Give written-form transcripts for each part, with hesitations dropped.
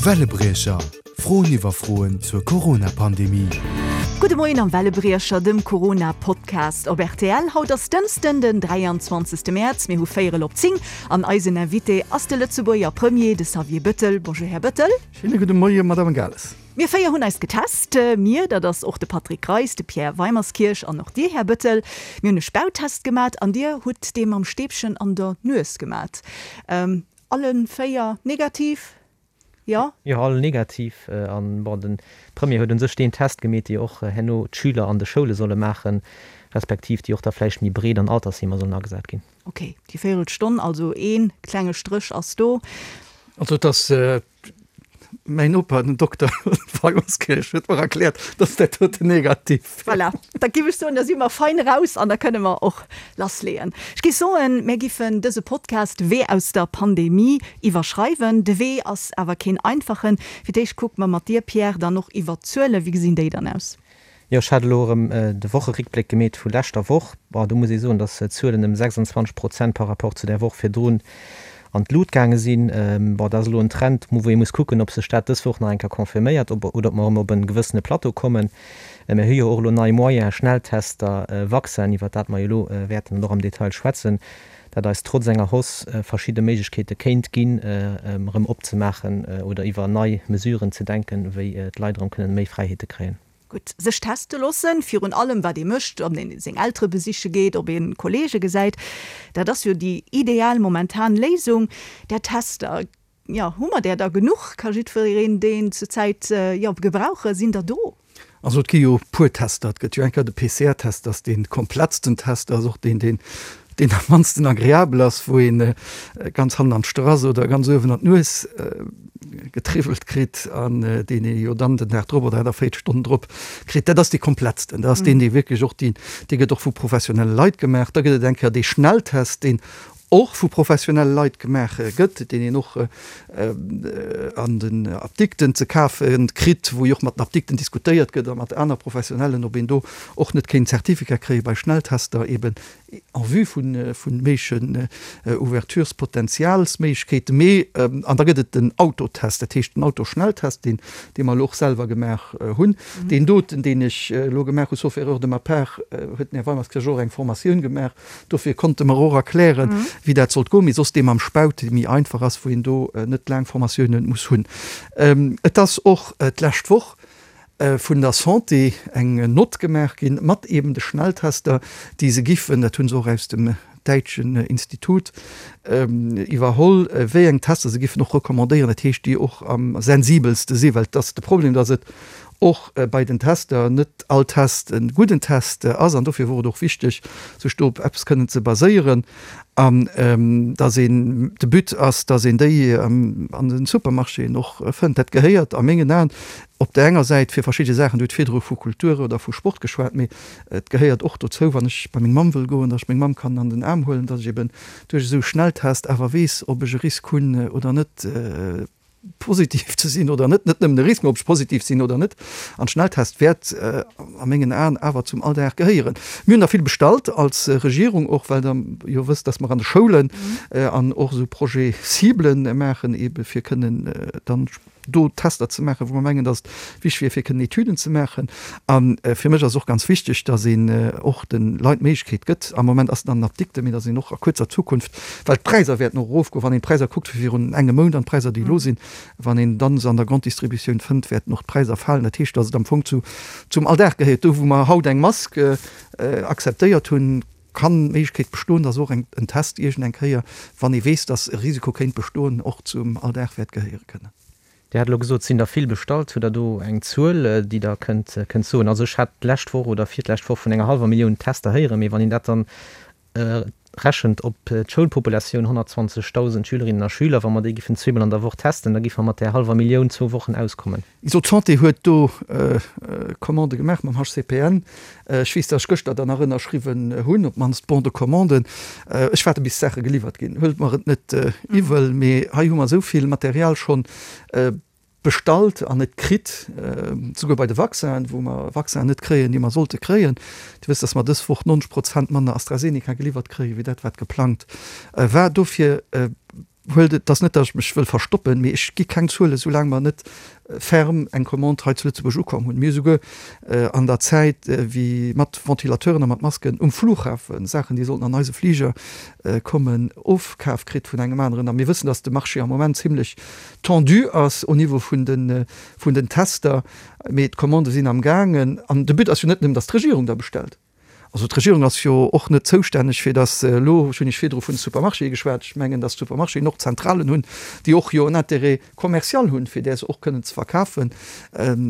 Wellebriecher, Froen iwwer Froen zur Corona-Pandemie. Gudde Moien am Wellebriecher, dem Corona-Podcast op rtl. Haut ass Dënschden, den 23. Mäerz, mir hu véierel op 10 an eisen Invité ass de Lëtzebuerger Premier, de Xavier Bëttel. Bonjour, Här Bëttel. Schéine gudde Moie, Madame Gales. Mir 4 hunn eis getest. Mir, dat ass och de Patrick Greis, de Pierre Weimerskirch an och Dir, Här Bëttel. Mir hunn e Spauttest gemat an Dir hutt dee mam Stäbchen an der Nues gemat. Alle 4 negativ? Jo? Jo, all negativ. An bon, de Premier huet un sech deen Test gemeet, dee och herno d'Schüler an de Schoule solle maachen, respektiv déi och da vläicht méi breet an Altersheemer sollen agesat ginn. Ok, déi Véierelstonn, also ee klenge Stréch ass do. Also et ass Mäin Noper, den Dokter Weimerskirch, huet mer erkläert, dass dat doten negativ wär. Voilà, da giff ech soen, da si mer fein eraus an da kënne mer och lassleeën. Ech giff soen, mär giffen dëse Podcast Wee aus der Pandemie iwwerschreiwen. De Wee ass awer keen einfachen. Fir d'éischt kucke mer mat dir, Pierre, dann och iwwert d'Zuelen. Wéi gesinn déi dann aus? Jo, ech hat elo erëm de Wocheréckbléck gemeet vu leschter Woch. Bon, do muss ee soen, datt d'Zuelen ëm 26 Prozent par rapport zu där Woch virdrun an d'Lut gaange sinn. Bon, dat ass elo en Trend, wou ee muss kucken, ob sech dat dës Woch nach eng Kéier confirméiert oder ob mer erëm op e gewëssene Plateau kommen. Mir hu jo och elo nei Moyens, Schnelltester, Vaccin, iwwert dat mer jo elo wäerten och am Detail schwätzen, dat eis trotz enger Hausse verschidde Méiglechkeete kéint ginn, erëm opzemaachen oder iwwer nei Mesuren ze denken, wéi d'Leit erëm kënnen méi Fräiheete kréien. Gutt, sech teste loossen, virun allem wat ee mécht, ob een seng Eltere besiche geet, ob ee Kolleege gesäit, dat ass jo déi ideal momentan Léisung. Där Tester, jo, hu mer där da genuch? Ka jiddwereen deen zur Zäit, jo, gebrauchen? Sinn der do? Also et gi jo e puer Tester. Et gëtt jo eng Kéier de PCR-Test, dat ass dee komplettsten Test, dat ass och deen, deen deen am mannsten agreabel ass, wou een ganz hannen an d'Strass oder ganz uewen an d'Nues getriwwelt kritt an deen ee jo dann den Dag drop oder 48 Stonnen drop kritt. Dat ass dee komplettsten. Dat ass deen, dee wierklech och deen, dee gëtt och vu professionelle Leit gemaach. Da gëtt et eng Kéier dee Schnelltest, deen och vu professionelle Leit gemaach gëtt, deen een och an den Apdikten ze kafe kritt, wou jo och mat den Apdikten diskutéiert gëtt a mat aner Professionellen, ob een do och net kéint Certificat kréie bei Schnelltester eben en vue vu méiglechen Ouverturespotenzialsméiglechkeeten. Mee, an da gëtt et den Autotest, dat heescht den Autoschnelltest, deen, dee mer elo och selwer gemaach hunn. Deen doten, deen ech elo gemaach hu, sauf erreur de ma part, huet den Här Weimerskirch och eng Formatioun gemaach, Dofir konnte mer och erklären, wéi dat sollt goen, mee soss dee mam Spaut, dee méi einfach ass, wou een do net laang Formatiounen muss hunn. Et ass och d'lescht Woch vun der Santé eng Nott gemaach ginn, mat eeben de Schnelltester, déi se giffen, dat hu se och aus dem däitschen Institut iwwerholl, wéi eng Tester se giffen och recommandéieren, dat heescht, déi och am sensibelste sinn, well et ass de Problem, datt et och bei den Tester net all Test e gudden Test ass an dofir wor et och wichteg, sech do op eppes kënnen ze baséieren an dass een, de But ass, dass een déi an den Supermarchéen och fënnt. Dat gehéiert a mengen Aen op där enger Säit fir verschidde Saachen, Dir hutt virdru vu Kultur oder vu Sport geschwat, mee et gehéiert och dozou, wann ech bei meng Mamm wëll goen, dass ech meng Mamm kann an den Aarm huelen, dass ech eben duerch esou Schnelltest awer weess, ob ech e Risk hunn oder net. positiv ze sinn oder net, net nëmmen e Risk, mä ob ech positiv sinn oder net. An Schnelltest wäert a mengen Aen awer zum Alldag gehéieren. Mir hunn der vill bestallt als Regierung och, well Der jo wësst, dass mer an de Schoulen an och esou Projets cibles maachen, eebe fir kënnen dann do Tester ze maachen, wou mer mengen, dass et wichtig wier, fir kënnen Etüden ze maachen. A fir mech ass och ganz wichteg, dass een och de Leit d'Méiglechkeet gëtt, am Moment ass et an den Apdikten, mee dass een och a kuerzer Zukunft, well d'Präisser wäerten och erofgoen, wann een d'Präisser kuckt vu virun engem Mount an d'Präisser, déi elo sinn, wann een dann se an der Grande Distributioun fënnt, wäerten och d'Präisser falen. Dat heescht, dass et am Fong zu zum Alldag gehéiert. Do wou mer haut eng Mask akzeptéiert hunn, kann d'Méiglechkeet bestoen, dass och en Test iergend eng Kéier, wann ee weess, dass e Risiko kéint bestoen, och zum Alldag wäert gehéiere kënnen. Dir hat elo gesot, et sinn der vill bestallt. Hutt Der do eng Zuel, déi Der kënnt kënnt soen? Also ech hat d'lescht Woch oder virtlescht Woch vun enger hallwer Millioun Tester héieren, mee wann een dat dann rechent op d'Schoulpopulatioun, 120.000 Schülerinnen a Schüler, wa mer déi giffen zweemol an der Woch testen, da giffe mer mat där hallwer Millioun zwou Wochen auskommen. Also d'Santé huet do Commandë gemaach mam HCPN. Ech weess, datt ech gëschter der nach ënnerschriwwen hunn, op d'mannst d'Bon de commande. Ech waarde bis d'Saache geliwwert ginn. Huelt mer et net iwwel, mee hei hu mer esou vill Material schonn bestallt an net kritt, souguer bei de Vaccinen, wou mer Vaccinen net kréien, déi mer sollte kréien. Dir wësst, datt mer dës Woch 90 Prozent manner AstraZeneca geliwwert kréien, wéi dat wat geplangt war. Dofir. Huelt et ass net, datt ech mech wëll verstoppen, mee ech gi keng Zuelen, soulaang mer net ferm eng Commande hei zu Lëtzebuerg ukomm hunn. Mir hu souguer an der Zäit, wéi mat Ventilateuren a mat Masken um Flughafen, Saachen, déi sollten an eise Fliger kommen, ofkaf kritt vun engem aneren. A mir wëssen, datt de Marché am Moment zimlech tendu ass au Niveau vun de vun den Tester. Mee d'Commandë sinn am gaangen. An de But ass jo net nëmmen, datt d'Regierung da bestellt. Also d'Regierung ass jo och net zoustänneg, fir datt elo, ech hunn Iech virdru vun de Supermarchéë geschwat, ech mengen, datt d'Supermarchéen och Zentralen hunn, déi och jo en Intérêt commercial hunn, fir där se och kënnen ze verkafen.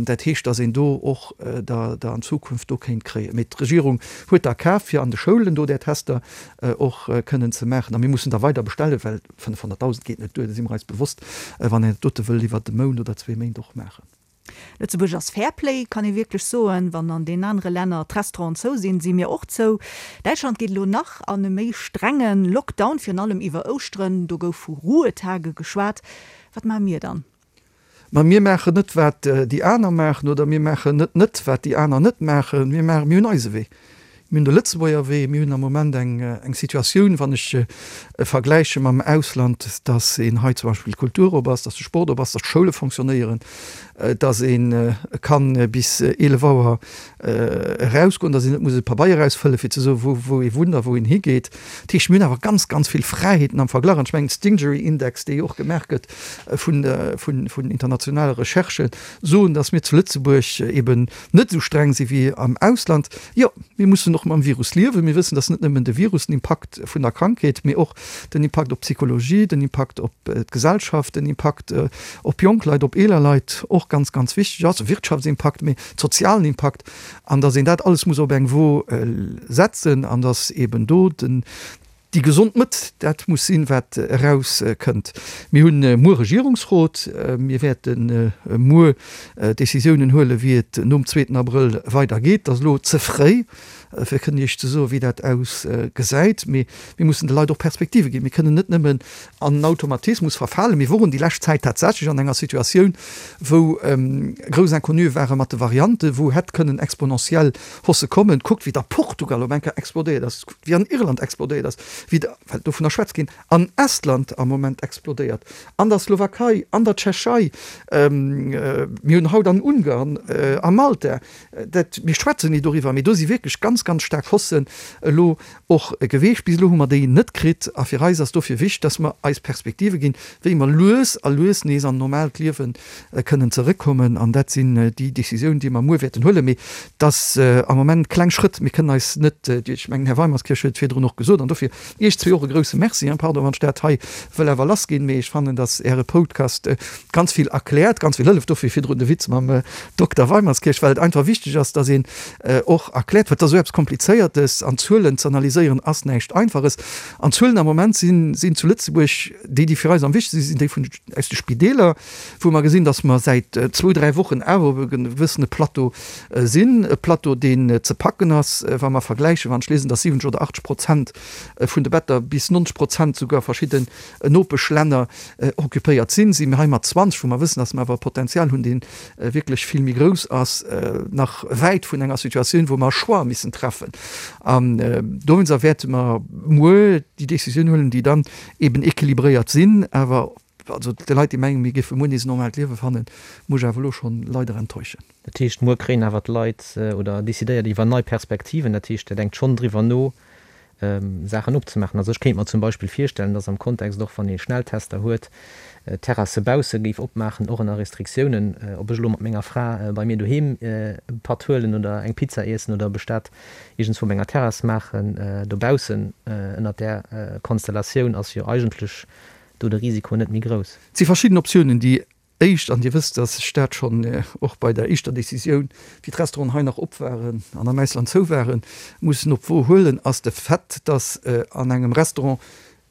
Dat heescht, datt een do och der der an Zukunft do kéint kréien. Mee d'Regierung huet der kaf, fir an de Schoulen do där Tester och kënnen ze maachen. A mir mussen der weider bestellen, well 500.000 geet net duer, do si mer eis bewosst, wann een dat dote wëll iwwert e Mount oder zwee Méint och maachen. Lëtzebuerg ass Fairplay, kann ee wierklech soen. Wann an den anere Länner d'Restauranten zou sinn, si mir och zou. Däitschland geet elo nach an e méi strenge Lockdown, virun allem iwwer Ouschteren. Do gouf vu Ruhetage geschwat. Wat maache mir dann? Ma mir maachen net, wat déi aner maachen, oder mir maachen net net, wat déi aner net maachen. Mir maachen, mir hunn eise Wee. Mir hunn de Lëtzebuerger Wee. Mir hunn am Moment eng, eng Situatioun, wann ech vergläiche mam Ausland, dass een hei zum Beispill d'Kultur op ass, dass de Sport op ass, dass d'Schoule fonctionnéieren, dass ee kann bis 11 Auer erausgoen, dass een net muss e Pabeier ausfëlle fir ze soen, wou, wou ee wunnt a wou een higeet. Dat heescht, mir hunn awer ganz, ganz vill Fräiheeten am Verglach. An ech mengen, Stingery-Index, dee jo och gemaach gëtt vun, vun, vun internationale Recherchen, soen, dass mir zu Lëtzebuerg eben net esou streng si wéi am Ausland. Jo, mir mussen och mam Virus liewen. Mir wëssen, dass net nëmmen de Virus, den Impakt vun der Krankheet, mee och den Impakt op d'Psychologie, den Impakt op d'Gesellschaft, den Impakt op jonk Leit, op eeler Leit och ganz, ganz wichteg ass, de Wirtschaftsimpakt, mee sozialen Impakt, an dass een dat alles muss op eng Wo setzen an dass eben do den, Déi gesond Mëtt, dat muss sinn, wat eraus kënnt. Mir hunn muer Regierungsrot. Mir wäerte muer Décisiounen huelen, wéi et nom zweeten Abrëll weider geet. Et ass elo ze fréi, fir kënnen Iech ze soen, wéi dat ausgesäit. Mee mir mussen de Leit och Perspektive ginn. Mir kënnen net nëmmen an en Automatismus verfalen. Mir woren déi lescht Zäit tatsächlech an enger Situatioun, wou grouss Inconnue ware mat de Varianten, wou hätt kënnen exponentiell Hausse kommen. Kuckt, wéi et a Portugal op eng Kéier explodéiert ass. wéi an Irland explodéiert ass, wéi, well dovunner schwätzt ginn, an Estland am Moment explodéiert, an der Slowakei, an der Tschechei, mir hunn haut an Ungarn, a Malta, dat, mir schwätzen ni doriwwer, mee do si wierklech ganz, ganz staark Haussen elo och geweecht. Bis elo hu mer déi net kritt a fir eis ass dofir wichteg, dass mer eis Perspektive ginn, wéi mer lues a lues nees an normaalt Liewe kënnen zeréckkommen an dat sinn déi Décisiounen, déi mer muer wäerten huelen. Mee et ass am Moment kleng Schrëtt. Mir kënnen eis net, ech mengen, Här Weimerskirch huet et virdrun och gesot, an dofir Iech zwee och e grouse Merci, pardon, wann ech dat hei wëll awer lassginn, mee ech fannen, datt Äre Podcast ganz vill erkläert, ganz vill hëlleft. Dofir virdrun de Witz mam Dokter Weimerskirch, well et einfach wichteg ass, datt een och erkläert, well et ass esou eppes Komplizéiertes an Zuelen ze analyséieren ass näischt Einfaches. An d'Zuelen am Moment sinn zu Lëtzebuerg déi, déi fir eis am wichtegste sinn, sinn déi vun aus de Spideeler, wou mer gesinn, dass mer säit zwou, dräi Wochen awer op e gewëssene Plateau sinn, e Plateau, deen ze packen ass, wa mer vergläichen, wann ech liesen, dass 70 oder 80 Prozent vun de Better, bis 90 Prozent souguer a verschidden Nopeschlänner occupéiert sinn, si mir hei mat 20, wou mer wëssen, dass mer awer e Potenzial hunn, dee wierklech vill méi grouss ass, nach wäit vun enger Situatioun, wou mer e Choix missen treffen. An dowéinster wäerte mer muer déi Décisioun huelen, déi dann eben équilibréiert sinn, awer also de Leit, déi mengen, mir géife muer nees e normaalt Liewe fannen, muss ech awer elo schonn leider enttäuschen. Dat heescht, muer kréien awer d'Leit oder decidéiert iwwer nei Perspektiven. Dat heescht, Der denkt schonn driwwer no, Saachen opzemaachen. Also ech kéint mer zum Beispill virstellen, dass am Kontext och, wann ee Schnelltester huet, d'Terrasse bausse géif opmaachen, och ënner Restriktiounen. Ob ech elo mat menger Fra bei mir doheem e Patt huelen oder eng Pizza iessen oder ob ech dat iergendswou op enger Terrass maachen dobaussen, ënnert där Konstellatioun ass jo eigentlech do de Risiko net méi grouss. Et si verschidden Optiounen. Déi éischt, an Dir wësst, dass ech dat schonn och bei der éischter Décisioun, wéi d'Restauranten hei nach op waren an am Ausland zou waren, mussen op d'Wo huelen, ass de Fait, dass an engem Restaurant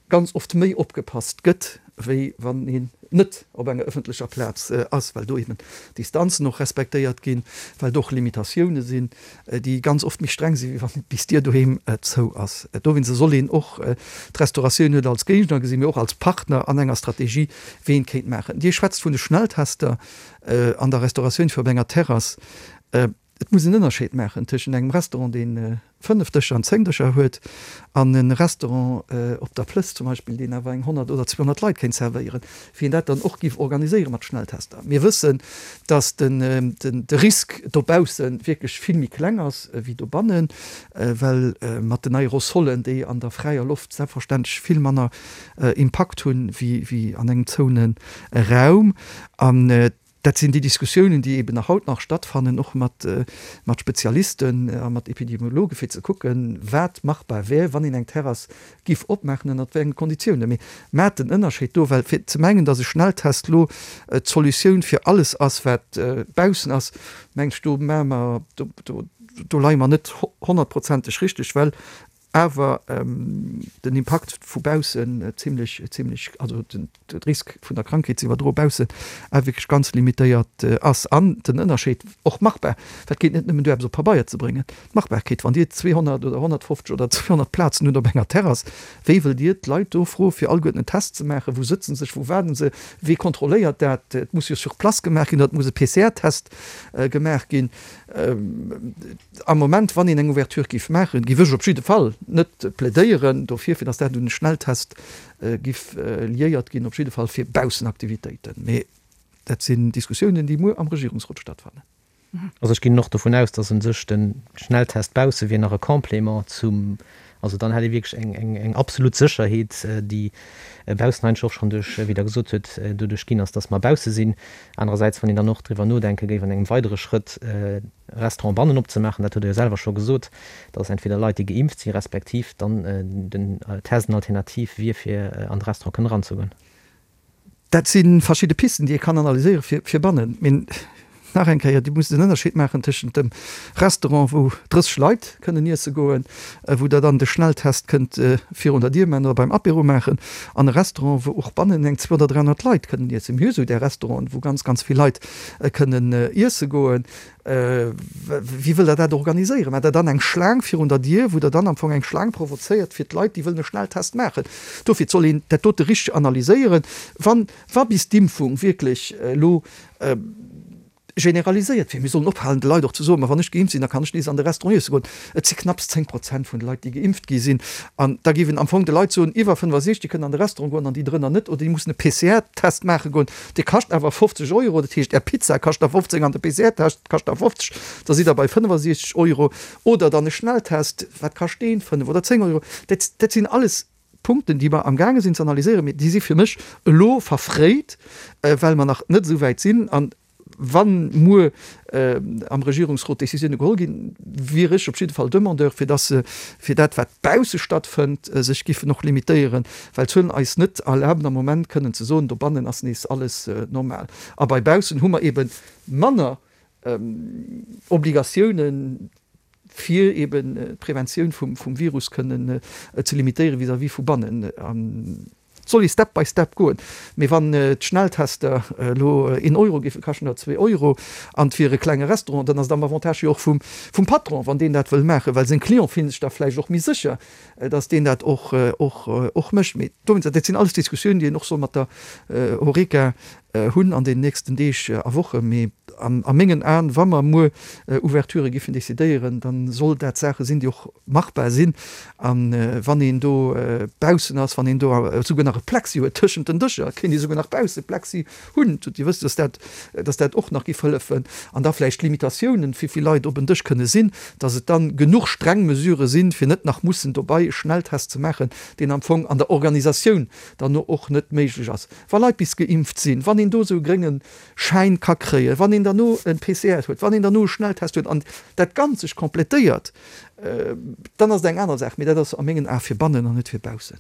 ganz oft méi opgepasst gëtt, wéi wann een net op enger ëffentlecher Plaz ass, well do eben d'Distanzen och respektéiert ginn, well do och Limitatioune sinn, déi ganz oft méi streng sinn, wéi wann bis d'Dier doheem zou ass. Dowéinst soll een och d'Restauratioun net als Géigner gesinn, mee och als Partner an enger Strategie, wéi een kéint maachen. Dir schwätzt vun de Schnelltester an der Restauratioun fir op enger Terrass. Et muss en Ënnerscheed maachen tëschent engem Restaurant, dee 5 Dëscher an 10 Dëscher huet, an e Restaurant op der Plëss zum Beispill, deen awer eng 100 oder 200 Leit kéint servéieren, wéi een dat dann och géif organiséiere mat Schnelltester. Mir wëssen, datt de Risk dobausse wierklech vill méi kleng ass wéi dobannen, well mat den Aerosolen, déi an der fräier Loft selbstverständlech vill manner Impakt hunn wéi an engem zoune Raum. An Dat sinn déi Diskussiounen, déi eeben nach haut nach stattfannen, och mat Spezialisten a mat Epidemiologen, fir ze kucken, wat machbar wär, wann een eng Terrass giff opmaachen, ënnert wéi enge Konditiounen. Mee maacht den Ënnerscheed do, well fir ze mengen, datt e Schnelltest elo d'Solutioun fir alles ass, wat baussen ass, mengen ech, do maache mer, do, do leie mer net honnertprozenteg richteg, well awer den Impakt vu baussen zimlech, zimlech, also den Risk vun der Krankheet ze iwwerdroe baussen awer wierklech ganz limitéiert ass. An den Ënnerscheed och machbar, dat geet net nëmmen duer eppes op Pabeier ze bréngen, d'Machbarkeet, wann Dir 200 oder 150 oder 200 Plazen hutt op enger Terrass, wéi wëllt Dir d'Leit do froe fir alleguerten en Test ze maachen? Wou sëtze sech, wou waarden se, wee kontrolléiert dat? Et muss jo sur place gemaach ginn oder et muss e PCR-Test gemaach ginn. Am Moment, wann een eng Ouverture géif maachen, géif ech op jidde Fall net plädéieren dofir, fir datt dat un e Schnelltest géif liéiert ginn, op jidde Fall fir Baussenaktivitéiten. Mee dat sinn Diskussiounen, déi muer am Regierungsrot stattfannen. Also ech ginn och dovun aus, datt u sech de Schnelltest bausse wier nach e Complément zum, also dann hätt ee wierklech eng absolut Sécherheet, déi baussen eigentlech och schonn duerch, wéi Der gesot hutt, doduerch ginn ass, datt mer bausse sinn. Anerersäits, wann een dann och driwwer nodenke géif an engem weidere Schrëtt, Restaurant bannen opzemaachen, dat hutt Der jo selwer scho gesot, dass entweder Leit, déi geimpft sinn, respektiv dann den Test en Alternativ wier, fir an de Restaurant kënnen eranzegoen. Dat si verschidde Pisten, déi ee kann analyséiere fir bannen. Mee nach eng Kéier, Dir musst en Ënnerscheed maachen tëschent dem Restaurant, wou 30 Leit kënnen iesse goen, wou Der dann de Schnelltest kënnt virun der Dier maachen oder beim Apéro maachen, an e Restaurant, wou och bannen eng 200 oder 300 Leit kënnen iessen. Mir hu sou där Restauranten, wou ganz, ganz vill Leit kënnen iesse goen. Wéi wëllt Der dat organiséieren? Maacht Der dann eng Schlaang virun der Dier, wou Der dann am Fong eng Schlaang provozéiert fir d'Leit, déi wëllen e Schnelltest maachen? Dofir, et soll een dat dote richteg analyséieren. Wann, wa bis d'Impfung wierklech elo generaliséiert wier, mir sollen ophalen de Leit och ze soen, ma wann ech geimpft sinn, da kann ech nees an de Restaurant iesse goen. Et si knapps 10 Prozent vun de Leit, déi geimpft gi sinn. An da géif een am Fong de Leit soen, iwwer 65 kënnen an de Restaurant goen an déi drënner net, oder déi mussen e PCR-Test maache goen. Dee kascht awer 50 Euro. Dat heescht, Är Pizza kascht da 15 an de PCR-Test kascht da 50, da sidd Der bei 65 Euro. Oder dann e Schnelltest, wat kascht deen? 5 oder 10 Euro. Dat, dat sinn alles Punkten, déi mer amgaange sinn ze analyséieren, mee déi si fir mech elo verfréit, well mer nach net esou wäit sinn. An wa muer am Regierungsrot Décisioune geholl ginn, wier ech op jidde Fall Demandeur, fir dass se fir dat, wat bausse stattfënnt, sech giffen och limitéieren, well d'Zuelen eis net erlaben am Moment kënnen ze soen, dobannen ass nees alles normal. A bei baussen hu mer eebe manner Obligatiounen, fir eeben d'Preventioun vum Virus kënnen ze limitéieren vis-à-vis vu bannen. Et soll ee Step by Step goen. Mee wann d'Schnelltester elo een Euro géife kaschten oder zwee Euro an et wier e klenge Restaurant, dann ass et am Avantage jo och vum Patron, wann deen dat wëll maachen, well seng Clienten fillen sech da vläicht och méi sécher, datt deen dat och mécht. Mee dowéinst, dat sinn alles Diskussiounen, déi een och soll mat der Horeca hunn an den nächsten Deeg a Wochen. Mee a mengen Aen, wa mer muer Ouverturë giffen decidéieren, da soll dat Saache sinn, déi och machbar sinn. A wann een do baussen ass, wann een do esouguer nach e Plexi huet tëschent den Dëscher, kéint ee souguer nach bausse Plexi hunn, Dir wësst, dass dat, dass dat och nach giff hëllefen. An da vläicht Limitatiounen, wéi vill Leit op en Dësch kënne sinn, dass et dann genuch streng Mesurë sinn, fir net nach mussen dobei e Schnelltest ze maachen, deen am Fong an der Organisatioun dann och net méiglech ass. Wa Leit bis geimpft sinn, wann een do esou e grénge Schäin ka kréien, wann een derno e PCR huet, wann een derno e Schnelltest huet an dat Ganzt sech completéiert, dann ass et eng aner Saach. Mee dat ass a mengen Ae fir bannen an net fir baussen.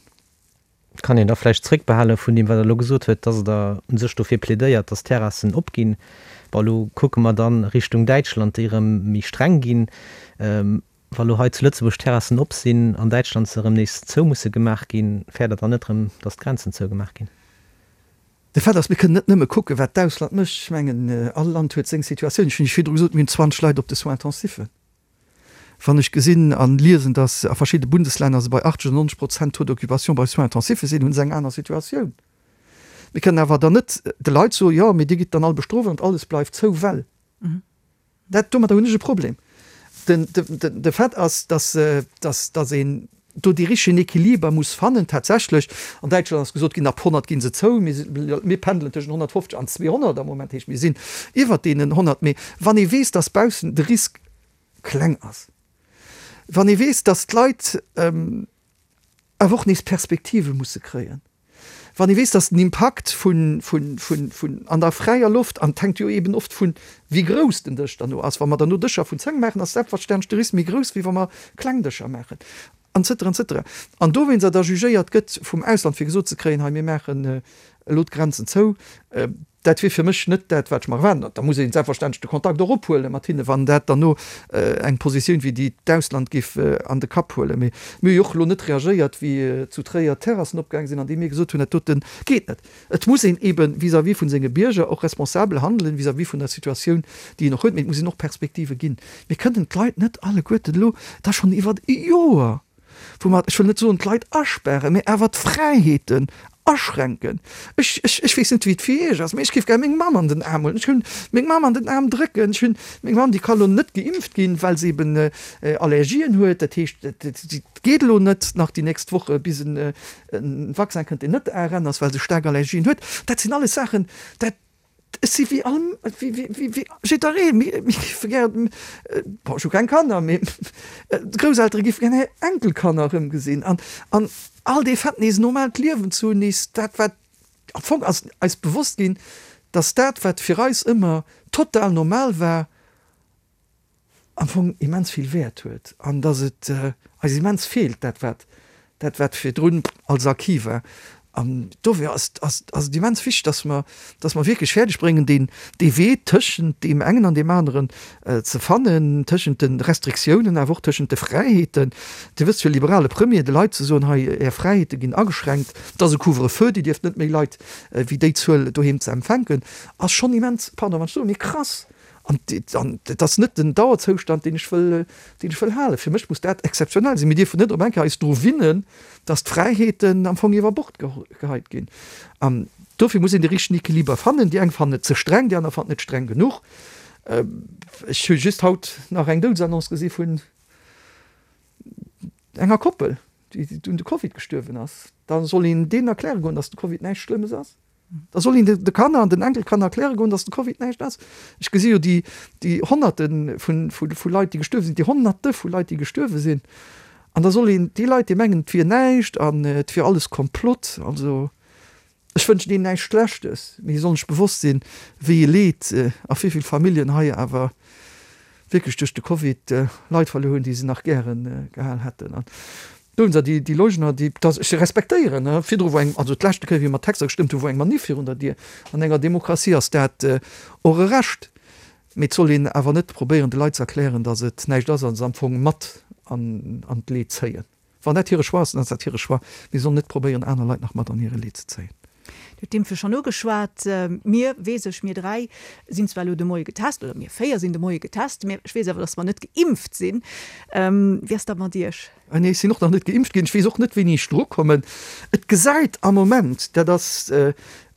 Kann een da vläicht zréckbehale vun deem, wat Der elo gesot huet, dass Der u sech dofir plädéiert, dass d'Terrassen opginn. Bon, elo kucke mer dann Richtung Däitschland, déi erëm méi streng ginn. Wa lo hei zu Lëtzebuerg d'Terrassen op sinn, an Däitschland se erëm nees zou musse gemaach ginn, fäert Der dann net erëm, datt d'Grenzen zougemaach ginn? De Fait ass, mir kënnen net nëmme kucken, wat d'Ausland mécht. Ech mengen, all Land huet seng Situatioun. Ech hunn Iech virdru gesot, mir hunn 20 Leit op de Soins intensifen. Wann ech gesinn a liesen, datt a verschidde Bundeslänner se bei 80 oder 90 Prozent Taux d'occupation bei Soins intensife sinn, hu se eng aner Situatioun. Mir kënnen awer dann net de Leit soen, jo, mee Dir gitt dann all bestrooft an alles bleift zou, well. Dat, domadder hunn ech e Problem. Den, de, de Fait ass, dass, dass, dass een do dee richtegen Equiliber muss fannen. Tatsächlech, an Däitschland ass gesot ginn, ab 100 gi se zou. Mir, mir pendelen tëschent 150 an 200 am Moment, heescht mir sinn iwwert deenen 100. Mee wann ee weess, dass baussen de Risk kleng ass, wann ee weess, dass d'Leit awer och nees Perspektive musse kréien, wann ee weess, dass den Impakt vun, vun, vun, vun an der fräier Loft, an et hänkt jo eeben oft vun, wéi grouss den Dësch derno ass, wa mer derno Dëscher vun 10 maachen, ass selbstverständlech de Risk méi grouss, wéi wa mer kleng Dëscher maachen, an cetera, an cetera. An dowéinster da jugéiert gëtt vum Ausland, fir gesot ze kréien, hei mir maachen elo d'Grenzen zou, Dat wier fir mech net dat, wat ech mer erwaarden. Da muss ee selbstverständlech de Kontakt och ophuele mat hinne, wann dat dann no eng Positioun wéi déi d'Ausland géif an de Kapp huelen. Mee mir hu jo och elo net reagéiert, wéi zu Tréier d'Terrassen opgaang sinn, andeem mir gesot hunn, dat dote geet net. Et muss een ebe vis-à-vis vu senge Bierger och responsabel handelen, vis-à-vis vun der Situatioun, déi een och huet. Mee et muss een och Perspektive ginn. Mir kënnen d'Leit net alleguerten elo da schonn iwwer e Joer, wou mer, ech wëll net soen d'Leit aspären, mä awer d'Fräiheeten aschränken. Ech, ech, ech weess net wéi et fir Iech ass, mä ech géif gär meng Mamm an den Aarm huelen. Ech hunn meng Mamm an den Aarm drécken. Ech hunn meng Mamm, déi ka lo net geimpft ginn, well se eben Allergien huet. Dat heescht, et geet elo net nach déi nächst Woche bis en Vaccin kënnt, deen net ARN ass, well se staark Allergien huet. Dat sinn alles Saachen, dat, Ech si wéi all, wéi jiddereen, mir géife gär, bon ech hu keng Kanner, mee d'Grousseltere géife gär hir Enkelkanner erëmgesinn an an all dee Fait nees e normaalt Liewen ze hunn, nees dat wat, am Fong ass eis bewosst ginn, datt dat wat fir eis ëmmer total normal war, am Fong immens vill Wäert huet an dass et eis immens feelt, dat wat dat wat virdrun als Acquis war. An dofir ass ass ass et immens wichteg, dass mer dass mer wierklech fäerdeg bréngen, deen dee Wee tëschent deem engen an deem aneren ze fannen, tëschent de Restriktiounen, awer och tëschent de Fräiheeten. Dir wësst, fir e liberale Premier de Leit ze soen, hei Är Fräiheete ginn ageschränkt, et ass e Couvre-feu, Dir dierft net méi Leit wéi déi Zuel doheem ze empfänken, ass schonn immens, pardon wann ech soen, mee krass. An et ass net den Dauerzoustand, deen ech wëll, deen ech wëll halen. Fir mech muss dat exzeptionell sinn. Mir dierfen net op eng Kéier eis dru winnen, dass d'Fräiheeten am Fong iwwer Bord geheit ginn. An dofir muss een de richtegen Equiliber fannen. Déi eng fannen et ze streng, déi aner fannen et streng genuch. Ech hu just haut nach eng Doudesannonce gesi vun enger Koppel, déi un de Covid gestuerwen ass. Da soll een deenen erkläre goen, dass de Covid näischt Schlëmmes ass. Da soll een de Kanner an den Enkelkanner erkläre goen, datt de Covid näischt ass. Ech gesi jo déi, déi Honnerte vu, vu, vu Leit, déi gestuerwe sinn, déi Honnerte vu Leit, déi gestuerwe sinn. An da soll een déi Leit, déi mengen, et wier näischt an et wier alles Komplott, also ech wënschen deenen näischt Schlechtes, mee si sollen sech bewosst sinn, wéi e Leed a wéi vill Familljen hei awer wierklech duerch de Covid Leit verluer hunn, déi se nach gäre gehal hätten. An do hunn se déi, déi Leugner, déi, dass ech se respektéieren, ne, virdru wor eng, also d'leschte Kéier, wéi mer Texter gestëmmt hunn, wor eng Manif virun der Dier. An enger Demokratie ass dat och e Recht. Mee et soll een awer net probéieren, de Leit ze erklären, dass et näischt ass a se am Fong mat an d'Leed zéien. Wann dat hire Choix ass, dann ass dat hire Choix. Mee se sollen net probéieren, aner Leit nach mat an hire Leed ze zéien. Dir hutt d'Impfe schonn ugeschwat. Mir, weess ech, mir 3 sinn zwar elo de Moie getest, oder mir 4 sinn de Moie getest, mä ech weess awer, datt mer net geimpft sinn. Wéi ass dat mat Iech? Nee, ech sinn och nach net geimpft ginn. Ech weess och net, wéini ech drukommen. Et gesäit am Moment, dat ass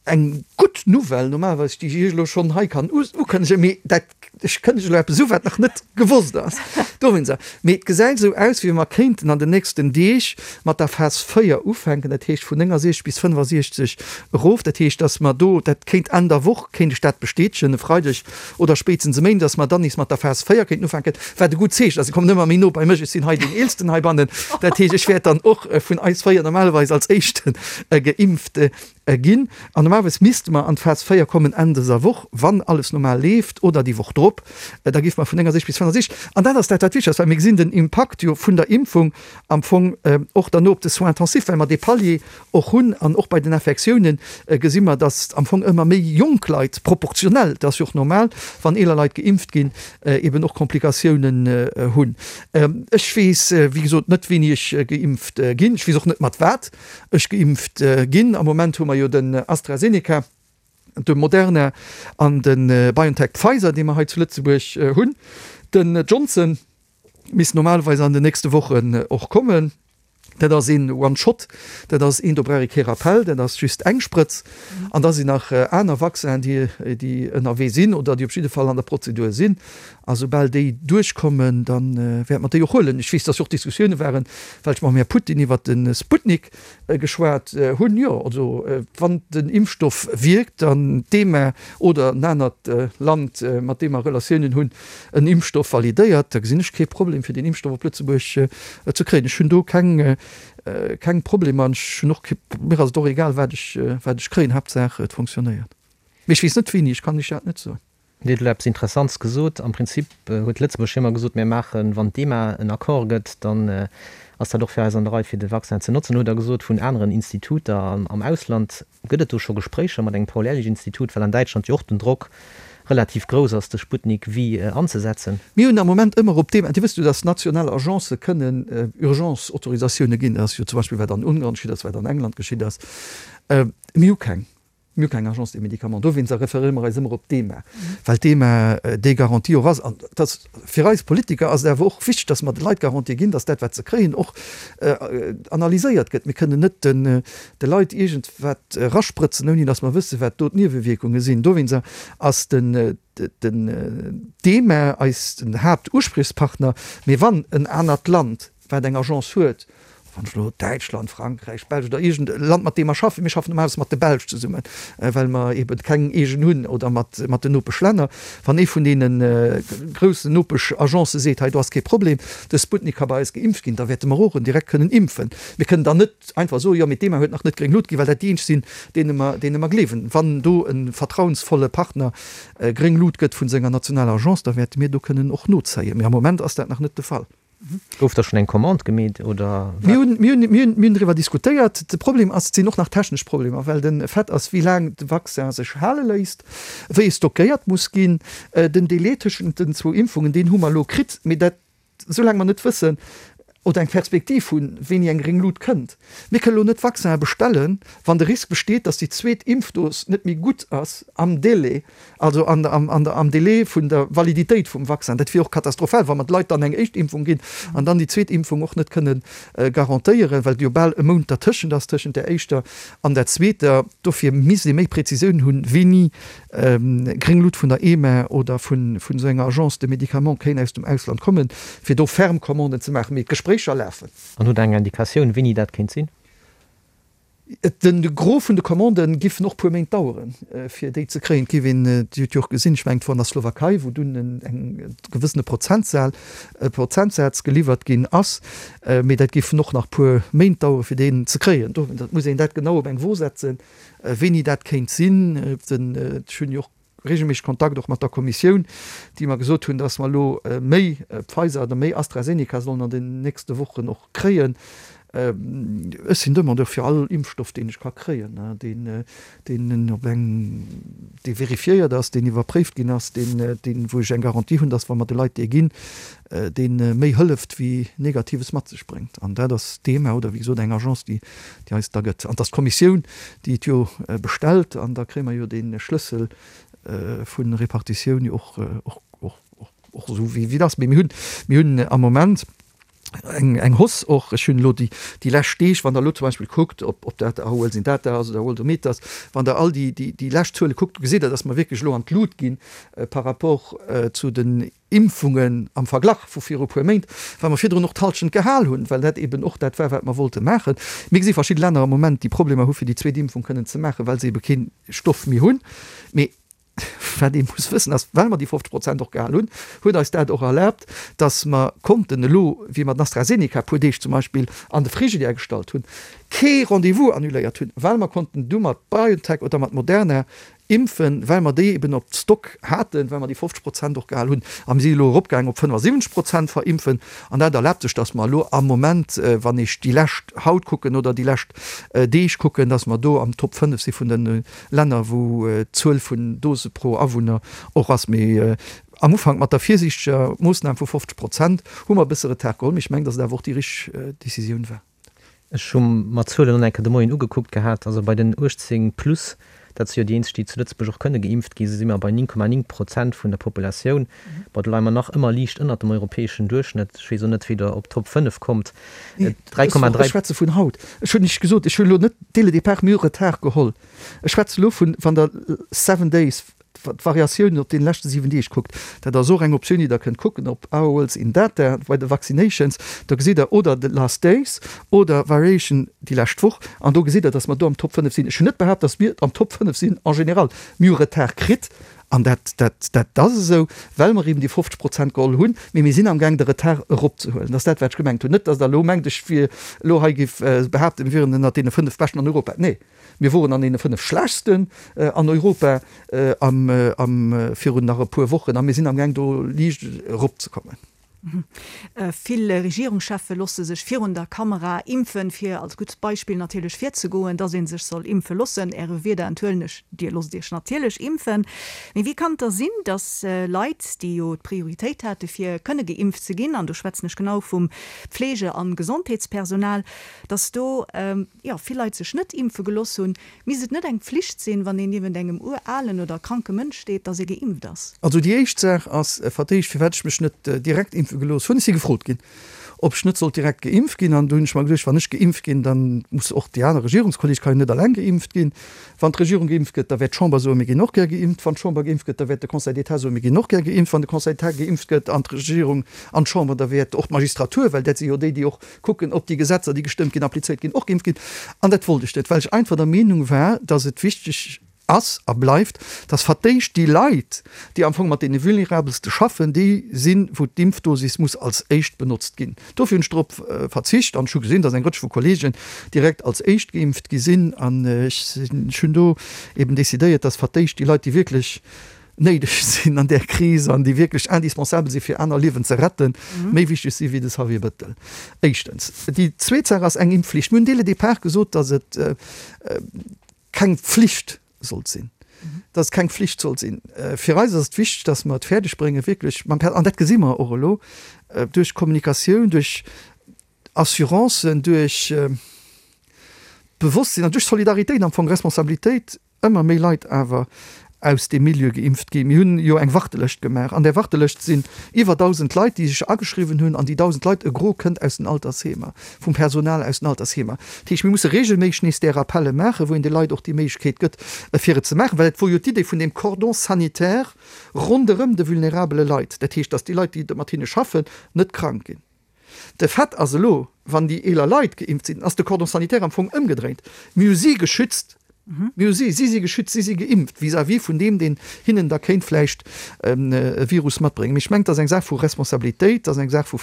eng gutt Nouvelle normalerweis, déi ech Iech elo schonn hei kann ukënnegen, mee dat, ech kënnegen elo eppes u wat nach net gewosst ass, dowéinster, mee et gesäit esou aus, wéi wa mer kéinten an den nächsten Deeg mat der Phas 4 ufänken, dat heescht vun 69 bis 65 erof. Dat heescht, datt mer do, dat kéint Enn der Woch, kéint ech dat bestätegen, e Freideg oder spéitstens e Méinden, datt mer dann nees mat der Phas 4 kéinten ufänken, wat e gutt Zeechen ass. Ech kommen ëmmer méi no bei mech, ech sinn hei deen Eelsten heibannen, dat heescht, ech wäert dann och vun eis 4 normalerweis als Éischten geimpft Ginn. An normalerweis misste mer an d'Phas 4 kommen Enn dëser Woch, wann alles normal leeft, oder déi Woch drop. Da géife mer vun 69 bis 65. An dat ass dat, wat wichteg ass, well mir gesinn den Impakt jo vun der Impfung am Fong och derno op de Soins intensifs, well mer dee Palier och hunn. An och bei den Infektiounen gesi mer, datt am Fong ëmmer méi jonk Leit proportionell, dat ass jo och normal, wann eeler Leit geimpft ginn, eben och Komplikatiounen hunn. Ech weess, wéi gesot, net, wéini ech geimpft ginn. Ech weess och net, mat wat. Ech geimpft ginn. Am Moment hu mer jo den AstraZeneca, de Moderna an de BioNTech Pfizer, dee mer hei zu Lëtzebuerg hunn. Den Johnson misst normalerweis an den nächste Wochen och kommen. Dat ass een One-Shot, dat ass een, do brauch ee kee Rappell, dat ass just eng Sprëtz. An da sinn nach aner Vaccinen, déi, déi ënnerwee sinn oder déi op jidde Fall an der Prozedur sinn. A soubal déi duerchkommen, da wäerte mer déi och huelen. Ech weess, dass jo och Diskussioune waren, well ech mam Här Putin iwwert de Sputnik geschwat hunn. Jo, also wann den Impfstoff wierkt an d'EMA oder en anert Land, mat deem mer Relatiounen hunn, en Impfstoff validéiert, da gesinn ech kee Problem, fir deen Impfstoff op Lëtzebuerg ze kréien. Ech hunn do keng, keng Problemer an ech hunn och kee, mir ass et och egal, wat ech, wat ech kréien, Haaptsaach et fonctionnéiert. Mee ech weess net wéini, ech kann lech dat net soen. Dir hutt elo eppes Interessantes gesot. Am Prinzip huet Lëtzebuerg jo ëmmer gesot, mir maachen, wann d'EMA en Accord gëtt, dann ass dat och fir eis an der Rei, fir de Vaccin ze notzen. Elo hutt Der gesot, vun aneren Instituter am Ausland. Gëtt et do scho Gespréicher mat engem Paul-Ehrlich-Institut, well an Däitschland jo och den Drock relativ grouss ass, de Sputnik V anzesetzen? Mir hunn am Moment ëmmer op deem, Dir wësst jo, datt national Agencë kënnen Urgence-Autorisatioune ginn. Dat ass jo zum Beispill wat an Ungarn geschitt ass, wat an England geschitt ass. Mir hu keng. Mir hu keng Agence des médicaments. Dowéinster referéiere mer eis ëmmer op d'EMA, well d'EMA déi Garantie och ass. An et ass fir eis Politiker ass et awer och wichteg, datt mer de Leit Garantie ginn, datt dat, wat se kréien, och analyséiert gëtt. Mir kënnen net de Leit iergendwat erasprëtzen, ouni datt mer wëssen, wat do d'Niewewierkunge sinn. Dowéinster ass den d'EMA eis den Haaptuspriechspartner. Mee wann en anert Land wat eng Agence huet, wann ech elo Däitschland, Frankräich, Belsch oder iergend e Land, mat deem mer schaffen, mir schaffen normalerweis mat de Belsch zesummen, well mer eeben keng eegen hunn, oder mat mat den Nopeschlänner, wann ee vun deene groussen Nopesch-Agencë seet, hei do ass kee Problem, de Sputnik ka bei eis geimpft ginn, da wäerte mer och en direkt kënnen impfen. Mir kënnen dann net einfach soen, jo mee d'EMA huet nach net gréng Lut ginn, well dat déi eenzeg sinn, deene mer deene mer gleewen. Wann do e vertrauensvolle Partner gréng Lut gëtt vun senger nationaler Agence, da wäerte mir do kënnen och nozéien. Mee am Moment ass dat nach net de Fall. Gouf da schonn eng Commande gemeet oder wat? Mir hunn, mir hunn, mir hunn, mir hunn driwwer diskutéiert. De Problem ass, et sinn och nach technesch Problemer, well de Fait ass, wéi laang de Vaccin sech hale léisst, wéi e stockéiert muss ginn. Den Délai tëschent den zwou Impfungen, deen hu mer elo kritt, mee dat, soulaang mer net wëssen oder eng Perspektiv hunn, wéini eng gréng Lut kënnt. Mir kënnen elo net Vaccinen bestellen, wann de Risk besteet, datt déi zweet Impfdos net méi gutt ass am Délai. Also an am Délai vun der Validitéit vum Vaccin. Dat wier och katastrophal, wa mer de Leit dann eng éischt Impfung ginn an dann déi zweet Impfung och net kënne garantéieren, well jo bal e Mount dertëschent ass, tëschent där éischter an der zweeter. Dofir misst ee méi Präzisioun hunn, wéini gréng Lut vun der EMA oder vun esou enger Agence de médicaments kéint aus dem Ausland kommen, fir do ferm Commanden ze maachen. Mee d'Gespréicher lafen. An hutt Der eng Indikatioun, wéini dat kéint sinn? De Gros vun de Commandë giffen och puer Méint daueren, fir déi ze kréien. Et géif een, Dir hutt jo och gesinn, ech mengen et wor an der Slowakei, wou dunn en gewëssene Prozentsal, Prozentsaz geliwwert ginn ass. Mee dat giffen och nach puer Méint daueren, fir deen ze kréien. Do muss een dat genau op eng Wo setzen, wéini dat kéint sinn. Ech hunn jo och regelméisseg Kontakt och mat der Kommissioun, déi mer gesot hunn, dass mer elo méi Pfizer oder méi AstraZeneca sollen an den nächste Wochen och kréien. Ech sinn Demandeur fir all Impfstoff, deen ech ka kréien, deen, deen op eng, dee vérifiéiert ass, deen iwwerpréift ginn ass, deen, deen, wou ech eng Garantie hunn, dass wa mer de Leit dee ginn, dee méi hëlleft wéi Negatives mat sech bréngt. An dat ass d'EMA oder wéi gesot eng Agence, déi, déi eis da gëtt. An et ass d'Kommissioun, déi et jo bestellt, an da kréie mer jo dee Schlëssel vu Repartitioun jo och, och, och, och esou wéi et ass. Mee mir hunn, mir hunn am Moment eng, eng Hausse och. Ech hunn elo déi, déi lescht Deeg, wann Der elo zum Beispill kuckt, ob, ob dat Our World in Data ass oder Worldometers, wann Der all déi, déi, déi lescht Zuele kuckt, gesitt Der, dass mer wierklech elo an d'Lut ginn par rapport zu den Impfungen am Verglach vu viru puer Méint, well mer virdrun och d'Halschent gehal hunn, well dat eben och dat war, wat mer wollte maachen. Mir gesi verschidde Länner am Moment, déi Problemer hu fir déi zweet Impfung kënnen ze maachen, well se ebe kee Stoff méi hunn. Mee wat ee muss wëssen ass, well mer déi 50 Prozent och gehal hunn, huet eis dat och erlaabt, datt mer konnten elo, wéi mer den AstraZeneca e puer Deeg zum Beispill an de Frigidaire gestallt hunn, kee Rendez-vous annuléiert hunn, well mer konnten du mat BioNTech oder mat Moderna Impfen, well mer déi eben op Stock haten, well mer déi 50 Prozent och gehal hunn. A mir si elo eropgaangen op 75 Prozent verimpfen. An dat erlaabt sech, dass mer elo am Moment, wann ech déi lescht haut kucken oder déi lescht Deeg kucken, dass mer do am Top 5 si vun de Länner, wou d'Zuel vun Dose pro Awunner och ass. Mee am Ufank mat der virsiichteger Moossnam vu 50 Prozent hu mer e bësse Retard geholl. Mee ech mengen, dass et awer och déi richteg Decisioun war. Ech hu mer d'Zuelen och nach eng Kéier de Moien ugekuckt gehat. Also bei den 18 plus. Dat si jo déi eenzeg, déi zu Lëtzebuerg och kënne geimpft ginn. Si si mer bei 9,9 Prozent vun der Populatioun. Bon, do leie mer nach ëmmer liicht ënnert dem europäeschen Duerchschnëtt. Ech weess och net, wéi Der op d'Top 5 kommt. Nee, 3,3. Ech schwätze vun haut. Ech hunn nicht gesot, ech hunn elo net dès le départ, mir hu Retard geholl. Ech schwätze elo vun, wann Der seven days, d'Variatiounen op deene leschte 7 Deeg kuckt, dat ass och eng Optioun, déi Der kënnt kucken op Hours in Data bei de Vaccinations, da gesitt Der oder the last days oder Variation déi lescht Woch an do gesitt Der, dass mer do am Top 5 sinn. Ech hunn net behaapt, dass mir am Top 5 sinn en général. Mir hu Retard kritt an dat, dat, dat ass esou, well mer eben déi 50 Prozent geholl hunn, mee mir sinn amgaang de Retard eropzehuelen. Dat ass dat, wat ech gemengt hunn. Net, dass Der elo mengt, ech wier elo hei géif behaapten, mir wieren ënnert deene 5 Beschten an Europa. Nee. Mir woren an deene 5 schlechtsten an Europa am virun nach e puer Wochen a mir sinn amgaang do liicht eropzekommen. Vill Regierungscheffe losse sech virun der Kamera impfen, fir als gutt Beispill natierlech virzegoen, dass ee sech soll impfe lossen. Äre Wierder enthuelen ech, Dir losst Iech natierlech impfen. Mee wéi kann et da sinn, dass Leit, déi jo d'Prioritéit hate fir kënne geimpft ze ginn, an do schwätzen ech genau vum Pflege an Gesondheetspersonal, dass do jo, vill Leit sech net impfe geloss hunn, misst et net eng Pflicht sinn, wann een niewent engem uralen oder kranke Mënsch steet, dass ee geimpft ass? Also déi éischt Saach ass vertéischt, firwat ech mech net direkt impfe gelooss hunn. Ech si gefrot ginn, ob ech net sollt direkt geimpft ginn. An do hunn ech mer geduecht, wann ech geimpft ginn, da muss och déi aner Regierungskolleg kann jo net alleng geimpft ginn. Wann d'Regierung geimpft gëtt, da wäert d'Chamber soen, mir ginn och gär geimpft. Wann d'Chamber geimpft gëtt, da wäert de Conseil d'État soen, mir ginn och gär geimpft. Wann de Conseil d'État geimpft gëtt an d'Regierung an d'Chamber, da wäert och d'Magistratur, well dat si jo déi, déi och kucken, ob déi Gesetzer, déi gestëmmt ginn, applizéiert ginn, och geimpft ginn. An dat wollt ech net, well ech einfach der Meenung war, dass et wichteg ass a bleift, dass verdéischt déi Leit, déi am Fong mat deene Vulnerabelste schaffen, déi sinn, wou d'Impfdosis muss als éischt benotzt ginn. Dofir hunn ech drop verzicht an ech hu gesinn, dass eng Rëtsch vu Kollegen direkt als éischt geimpft gi sinn. An ech sinn, ech hunn do eben decidéiert, dass verdéischt déi Leit, déi wierklech néideg sinn an där Kris an déi wierklech indispensabel si fir aner Liewen ze retten, méi wichteg si wéi de Xavier Bettel. Éischtens. Déi zweet Saach ass eng Impfflicht. Mir hunn dès le départ gesot, datt et keng Pflicht sollt sinn, datt et keng Pflicht sollt sinn. Fir eis ass et wichteg, datt mer et fäerdeg bréngen, wierklech mam Per, an dat gesi mer och elo, duerch Kommunikatioun, duerch Assurancen, duerch Bewosstsinn an duerch Solidaritéit am Fong, Responsabilitéit, ëmmer méi Leit awer aus deem Milieu geimpft ginn. Mir hunn jo eng Wartelëscht gemaach. An där Wartelëscht sinn iwwer 1.000 Leit, déi sech ageschriwwen hunn. An déi 1.000 Leit, e Gros kënnt aus den Altersheemer, vum Personal aus den Altersheemer. Dat heescht, mir musse regelméisseg nees där Rappelle maachen, wou een de Leit och déi Méiglechkeet gëtt, fir et ze maachen. Well et wor jo d'Idee vun deem Cordon sanitaire ronderëm de vulnerabele Leit. Dat heescht, datt déi Leit, déi mat hinne schaffen, net krank ginn. De Fait ass elo, wann déi eeler Leit geimpft sinn, ass de Cordon sanitaire am Fong ëmgedréint. Mir hu si geschützt, mir hu si, si si geschützt, si si geimpft vis-à-vis vun deem, deen hinnen da kéint vläicht e Virus matbréngen. Mee ech mengen, et ass eng Saach vu Responsabilitéit, et ass eng Saach vu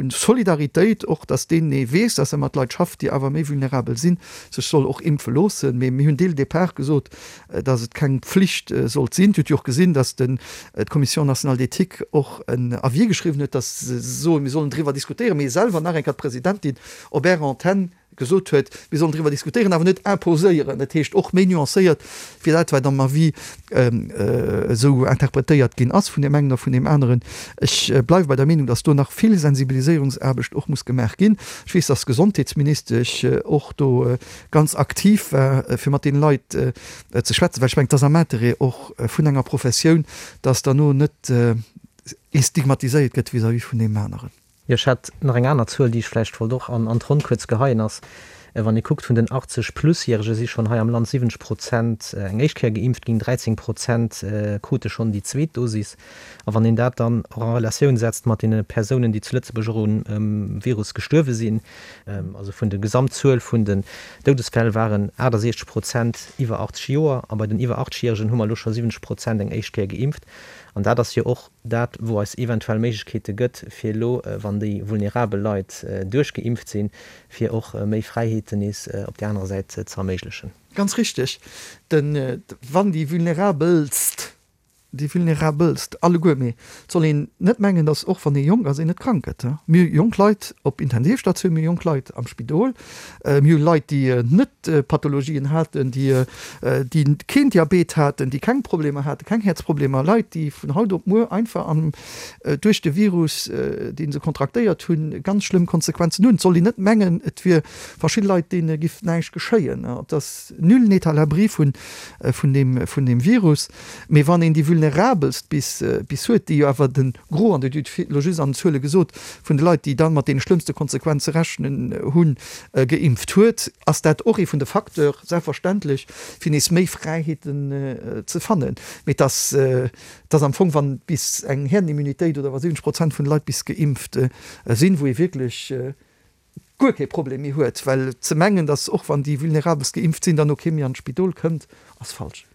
Solidaritéit och, dass deen, dee weess, dass e mat Leit schafft, déi awer méi vulnerabel sinn, sech soll och impfe loossen. Mee mir hunn dès le départ gesot, dass et keng Pflicht sollt sinn. Dir hutt jo och gesinn, dass d'Commission nationale d'éthique och en Avis geschriwwen huet, dass se soen, mir sollen driwwer diskutéieren, mee selwer nach eng Kéier d'Presidentin op Ärer Antenn gesot huet, mir sollen driwwer diskutéieren, awer net imposéieren. Dat heescht och méi nuancéiert wéi dat, wat am Avis esou interpretéiert ginn ass vun deem engen a vun deem aneren. Ech bleiwe bei der Meenung, dass do nach vill Sensibiliséierungsaarbecht och muss gemaach ginn. Ech weess, dass d'Gesondheetsministesch och do ganz aktiv war, fir mat deene Leit ze schwätzen, well ech mengen, et ass am Interêt och vun enger Professioun, dass derno net ee stigmatiséiert gëtt vis-à-vis vun deem aneren. Jo, ech hat nach eng aner Zuel, déi ech vläicht wollt och an d'Ronn kuerz geheien, ass, wann ee kuckt, vun den 80 Plus-Järege si schonn hei am Land 70 Prozent eng éischt Kéier geimpft ginn, 13 Prozent krute schonn déi zweet Dosis. A wann een dat dann och a Relatioun setzt mat deene Persounen, déi zu Lëtzebuerg och um Virus gestuerwe sinn, also vun der Gesamtzuel vun den Doudesfäll waren 68 Prozent iwwer 80 Joer a bei den iwwer 80 Järegen hu mer elo scho 70 Prozent eng éischt Kéier geimpft. An dat ass jo och dat, wou eis eventuell Méiglechkeete gëtt, fir elo, wann déi vulnerabel Leit duerchgeimpft sinn, fir och méi Fräiheeten nees op där anerer Säit ze erméiglechen. Ganz richteg. Wann déi vulnerabelst. Déi Vulnerabelst alleguer. Mee et soll een net mengen, datt och wann ee jonk ass, een net krank gëtt. Mir hu jonk Leit op Intensivstatioun, mir hu jonk Leit am Spidol, mir hu Leit, déi net Pathologien haten, déi déi keen Diabet haten, déi keng Problemer haten, keng Häerzproblemer, Leit, déi vun haut op muer einfach an duerch de Virus, dee se kontraktéiert hunn, ganz schlëmm Konsequenzen hunn. Et soll een net mengen, et wier verschidde Leit, deene giff näischt geschéien. Et ass nul n'est à l'abri vun vun deem vun deem Virus. Mee wann een déi Vulnerabelst bis bis huet, déi jo awer de Gros, an Dir hutt elo just an den Zuele gesot, vun de Leit, déi da mat deene schlëmmste Konsequenze rechnen hunn, geimpft huet, ass dat och ee vun de Facteur, selbstverständlech, fir nees méi Fräiheeten ze fannen. Mee et ass, et ass am Fong, wann bis eng Herdenimmunitéit oder wa 70 Prozent vun de Leit bis geimpft sinn, wou ee wierklech guer kee Problem méi huet, well ze mengen, datt och wann déi Vulnerabelst geimpft sinn, dann no kee méi an d'Spidol kënnt, ass falsch.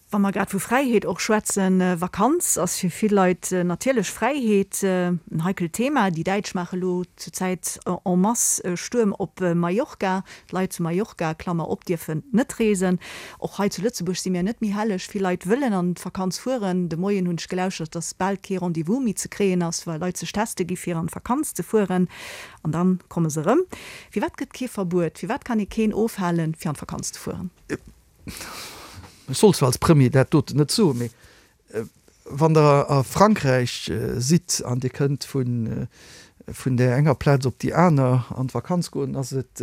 Wa mer grad vu Fräiheet och schwätzen, Vakanz ass fir vill Leit natierlech Fräiheet. En heikelt Thema. Déi Däitsch maache lo zur Zäit en masse Stuerm op Mallorca. D'Leit zu Mallorca, Klammer op, dierfen net reesen. Och hei zu Lëtzebuerg si mir net méi helleg. Vill Leit wëllen an d'Vakanz fueren. De Moien hunn ech gelauschtert, dass bal kee Rendez-vous méi ze kréien ass, well Leit sech teste gi fir an d'Vakanz ze fueren. An dann komme se erëm. Firwat gëtt kee Verbuet? Firwat kann ee keen ofhalen, fir an d'Vakanz ze fueren? Ech soll zwar als Premier dat doten net soen, mee wann Der a Frankräich sidd an Dir kënnt vun där enger Plaz op déi aner an d'Vakanz goen, ass et,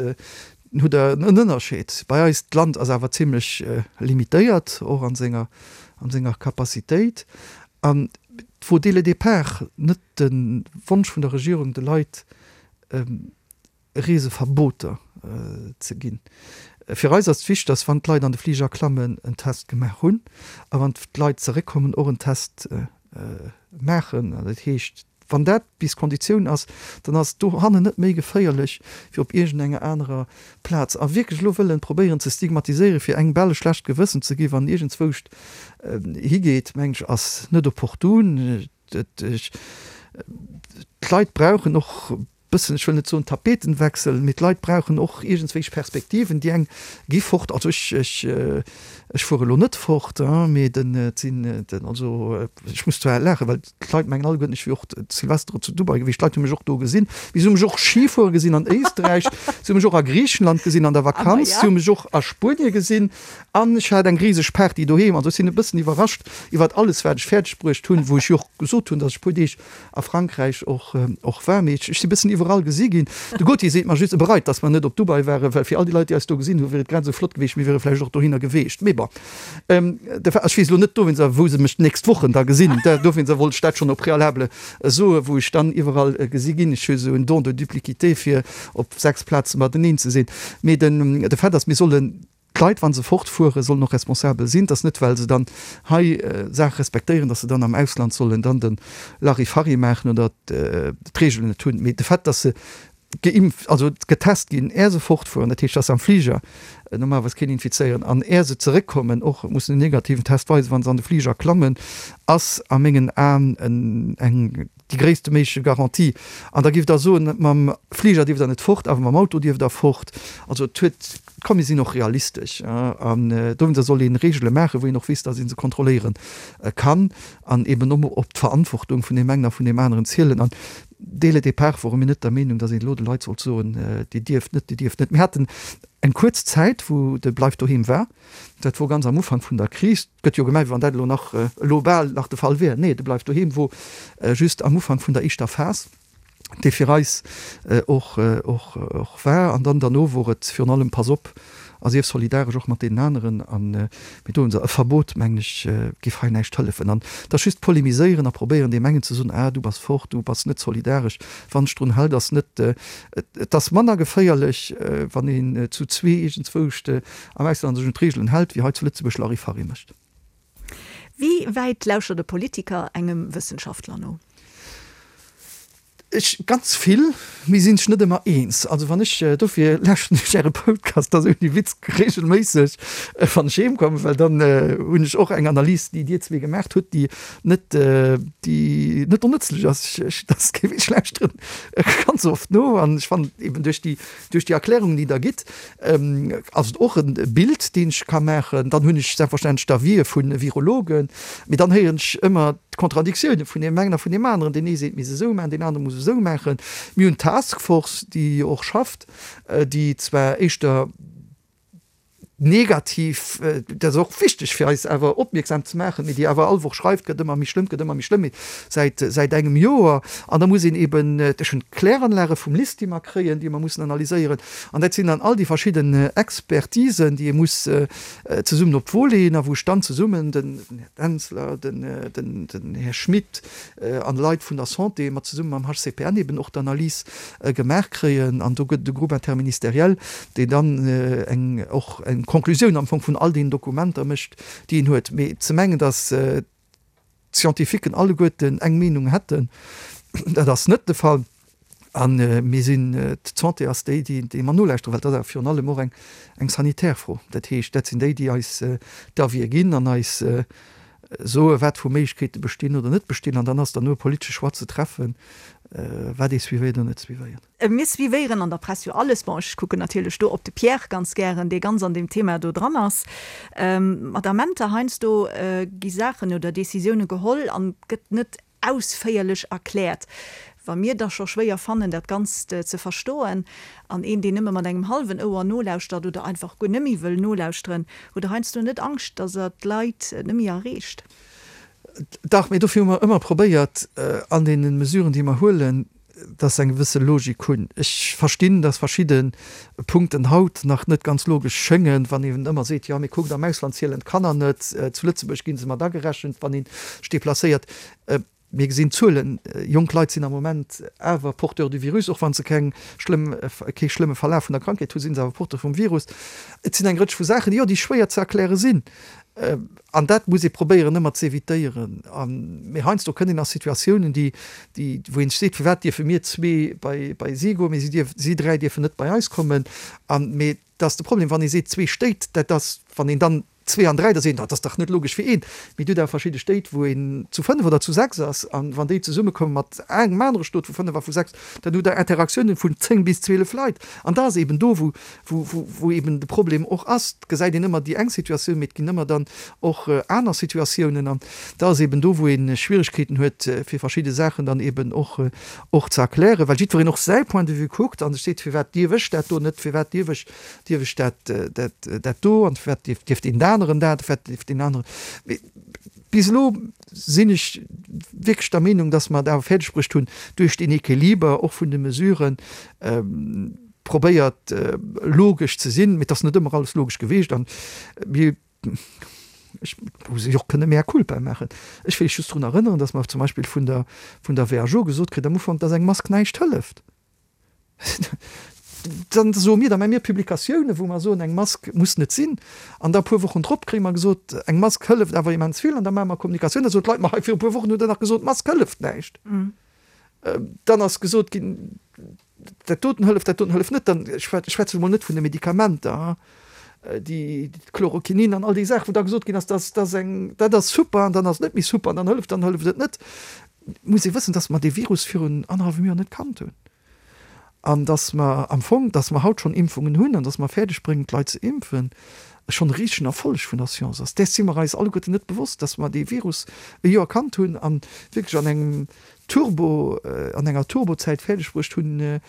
hutt Der en Ënnerscheed. Bei eis, d'Land ass awer zimlech limitéiert, och a senger, a senger Capacitéit. An et wor dès le départ net de Wonsch vun der Regierung, de Leit Reeseverboter ze ginn. Fir eis ass et wichteg, dass wann d'Leit an de Fliger klammen, en Test gemaach hunn a wann d'Leit zeréckkommen, och en Test maachen. Dat heescht, wann dat bis d'Konditioun ass, dann ass et dohannen net méi geféierlech wéi op iergendenger anerer Plaz. A wierklech elo wëllen probéieren ze stigmatiséieren, fir engem bal e schlecht Gewëssen ze ginn, wann iergendzwouscht higeet, mengen ech, ass net opportun. D'Leit brauchen och bëssen, ech wëll net soen Tapetenwechsel, mee d'Leit brauchen och iergendswéich Perspektiven. Déi eng gi fort, also ech, ech, ech fuere elo net fort, mee den, et sinn den, also ech muss zwar laachen, well d'Leit mengen alleguerten, ech wier och Silvester zu Dubai gewiescht. D'Leit hu mech och do gesinn, mee se hu mech och Ski fuere gesinn an Éisträich, se hu mech och a Griichenland gesinn an der Vakanz, se hu mech och a Spuenie gesinn an ech hat eng riseg Party doheem. Also ech sinn e bëssen iwwerrascht iwwert alles, wat ech fäerdeg bruecht hunn, wou ech jo och gesot hunn, datt ech e puer Deeg a Frankräich och och war, mee ech si bëssen iwwerall gesi ginn. De Gauthier seet mer just, e bereit, datt mer net op Dubai waren, well fir all déi Leit, déi eis do gesinn hunn, wier et grad esou flott geweecht, mir wiere vläicht och dohinner geweecht. Mee bon, de Fa, ech weess elo net dowéinster, wou se mech d'nächst Wochen da gesinn, dowéinster wollt ech dat schonn au préalable soen, wou ech dann iwwerall gesi ginn. Ech hu esou en Don de duplicité, fir op 6 Plaze mateneen ze sinn. Mee den, de Fait ass, mir sollen D'Leit, wa se fortfueren, sollen och responsabel sinn. Et ass net, well se dann hei Saache respektéieren, datt se dann am Ausland sollen dann de Larifari maachen oder d'Reegelen net hunn. Mee de Fait, datt se geimpft, also getest ginn, är se fortfueren, dat heescht, datt se am Fliger normalerweis keen infizéieren, an är se zeréckkommen och mussen en negativen Test weisen, wa se an de Fliger klammen, ass a mengen Aen eng Déi gréisste méiglech Garantie. An da giff Der soen, mam Fliger dierft Der net fort, awer mam Auto dierft Der fort. Also et huet, komm mir sinn och realistesch. An dowéinster soll ee Regele maachen, wou een och weess, datt ee se kontrolléiere kann an eben och op d'Verantwortung vun deem engen a vun deem aneren zielen. An dès le départ wore mir net der Meenung, datt een elo de Leit sollt soen, Dir dierft net, Dir dierft net. Mir haten eng kuerz Zäit, wou de Bleif doheem war. Dat wor ganz am Ufank vun der Kris. Et gëtt jo gemengt, wéi wann dat elo nach, elo bal nach de Fall wier. Nee, de Bleif doheem wor just am Ufank vun der éischter Phas, dee fir eis och, och, och war. An dann derno wor et virun allem, Pass op a sief solidaresch och mat deenen aneren. An mee do hunn se e Verbot, mengen ech, géif hei näischt hëllefen. An et ass just polemiséieren a probéieren, deem engen ze soen, Ah, du bass fort, du bass net solidaresch. Wann ech drun hal, dass net, et ass manner geféierlech, wann een zu zwee iergendzwouscht am Ausland sech un d'Reegelen hält, wéi hei zu Lëtzebuerg Larifari mécht. Wéi wäit lauschtert e Politiker engem Wëssenschaftler no? Ech, ganz vill. Mir sinn sech net ëmmer eens. Also wann ech, dofir lauschteren ech Äre Podcast, dat ass ouni Witz, regelméisseg, wann ech heem kommen, well dann hunn ech och eng Analys, déi Dir zwee gemaacht hutt, déi net, déi net onnëtzlech ass. Ech, dat ass kee Witz, ech lauschteren ganz oft no an ech fannen eben duerch déi, duerch déi Erklärungen, déi Der gitt, ass et och e Bild, deen ech ka maachen. Dann hunn ech selbstverständlech d'Avisë vu Virologen, mee dann héieren ech ëmmer d'Kontradiktiounen vun deem engen a vun deem aneren. Deen ee seet, mir misst esou maachen, deen anere muss esou maachen. Mir hunn d'Taskforce, déi jo och schafft, déi zwar éischter negativ, dat ass och wichteg fir eis awer opmierksam ze maachen, mee déi awer all Woch schreift, gëtt ëmmer méi schlëmm, gëtt ëmmer méi schlëmm, mee säit, säit engem Joer. An da muss een eben, ech hunn d'Kläranlage vum LIST, déi mer kréien, déi mer mussen analyséieren. An dat sinn dann all déi verschidden Expertisen, déi ee muss zesummen op d'Wo leeën a wou ech dann zesummen, den Här Denzler, den, den, den Här Schmit an Leit vun der Santé, mat zesumme mam HCPN eben och d'Analys gemaach kréien. An do gëtt et e Groupe interministériel, deen dann eng, och eng Konklusioun am Fong vun all deenen Dokumenter mécht, déi een huet. Mee ze mengen, datt d'Scientifiquen alleguerten eng Meenung hätten, dat ass net de Fall. A mir sinn, d'Santé ass déi, déi mer nolauschteren, well dat ass awer virun allem och eng sanitär Fro. Dat heescht, dat sinn déi, déi eis d'Avisë ginn an eis soe wat vu Méiglechkeete bestinn oder net bestinn. An dann ass derno e politesche Choix ze treffen, wat ee suivéiert oder net suivéiert. Mir suivéieren an der Press jo alles. Bon, ech kucken natierlech do op de Pierre ganz gären, dee ganz an deem Thema do dran ass. Mat Amenter heiansdo gi Saachen oder Décisioune geholl an et gëtt net ausféierlech erkläert. Wa mir da scho schwéier fannen, dat Ganzt ze verstoen, an een, deen nëmme mat engem hallwen Ouer nolauschtert oder einfach guer net méi wëll nolauschteren, hutt Der heiansdo net Angscht, datt Der d'Leit net méi erreecht? Dach, mee dofir hu mer ëmmer probéiert, an deene Mesuren, déi mer huelen, dass se eng gewësse Logik hunn. Ech verstinn, dass verschidde Punkten haut nach net ganz logesch schéngen, wann een ëmmer seet, jo, mee kuckt, am Ausland zielen d'Kanner net, zu Lëtzebuerg gi se mat agerechent, wann ee sech deplacéiert. Mir gesinn d'Zuelen, jonk Leit sinn am Moment awer Porteur du virus, och wa se keng schlëmm, kee schlëmme Verlaf vun der Krankheet hunn, si se awer Porteur vum Virus. Et sinn eng Rëtsch vu Saachen, jo, déi schwéier ze erkläre sinn. An dat muss ee probéieren ëmmer ze evitéieren. Mee heiansdo kënnt een a Situatiounen, déi, déi, wou een sech seet, firwat dierfe mir zwee bei, bei si goen, mee si dierf, si dräi dierfen net bei eis kommen. An, mee dat ass de Problem, wann ee seet zwee Stéit, dat ass, wann een dann zwee an dräi, da seet een, dat ass dach net logesch fir een. Mee et huet awer verschidde Stéit, wou een zu fënnef oder zu sechs ass. An wann déi zesummekomme mat engem anere Stot vu fënnef a vu sechs, dann hutt Der Interaktiounen vun zéng bis 12 Leit. An da ass eben do, wou, wou eben de Problem och ass. Et gesäit een ëmmer déi eng Situatioun, mee et ginn ëmmer dann och aner Situatiounen. An da ass eben do, wou ee Schwierigkeeten huet, fir verschidde Saachen dann eben och, och ze erklären, well jiddwereen och säi Point de vue kuckt a sech seet, Firwat dierf ech dat do net, firwat dierf ech, dierf ech dat, dat, dat do an firwat dierf, dierf deen aneren dat, firwat dierf deen aneren. Mee bis elo sinn ech wierklech der Meenung, dass mer et awer fäerdegbruecht hunn, duerch deen Equiliber och vun de Mesuren, probéiert logesch ze sinn, mee et ass net ëmmer alles logesch gewiescht an mir, ech muss ech och kënne mea culpa maachen. Ech wéll just drun erënneren, datt mer zum Beispill vun der vun der WHO gesot kritt am Ufank, datt eng Mask näischt hëlleft. Dann soe mir, da maache mir Publikatiounen, wou mer soen, eng Mask muss net sinn an da e puer Wochen drop kréie mer gesot, eng Mask hëlleft awer immens vill an da maache mer Kommunikatioun, da soen d'Leit, ma hei viru puer Wochen hutt Der nach gesot, d'Mask hëlleft näischt. Dann ass gesot ginn, dat doten hëlleft, dat doten hëlleft net. Dann, ech schwätze mol net vun de Medikamenter, déi Chloroquinin an all déi Saachen, wou da gesot ginn ass, dat ass eng, dat ass super an dann ass et net méi super an dann hëlleft, dann hëlleft et net. Et muss ee wëssen, dass mer dee Virus virun annerhallwem Joer net kannt hunn an dass mer am Fong, dass mer haut schonn Impfungen hunn an dass mer fäerdeg bréngen, d'Leit ze impfen, schonn e risegen Erfolleg vun der Science ass. Däers si mer eis alleguerten net bewosst, dass mer dee Virus e Joer kannt hunn a wierklech an engem Turbo, an enger Turbozäit fäerdeg bruecht hunn,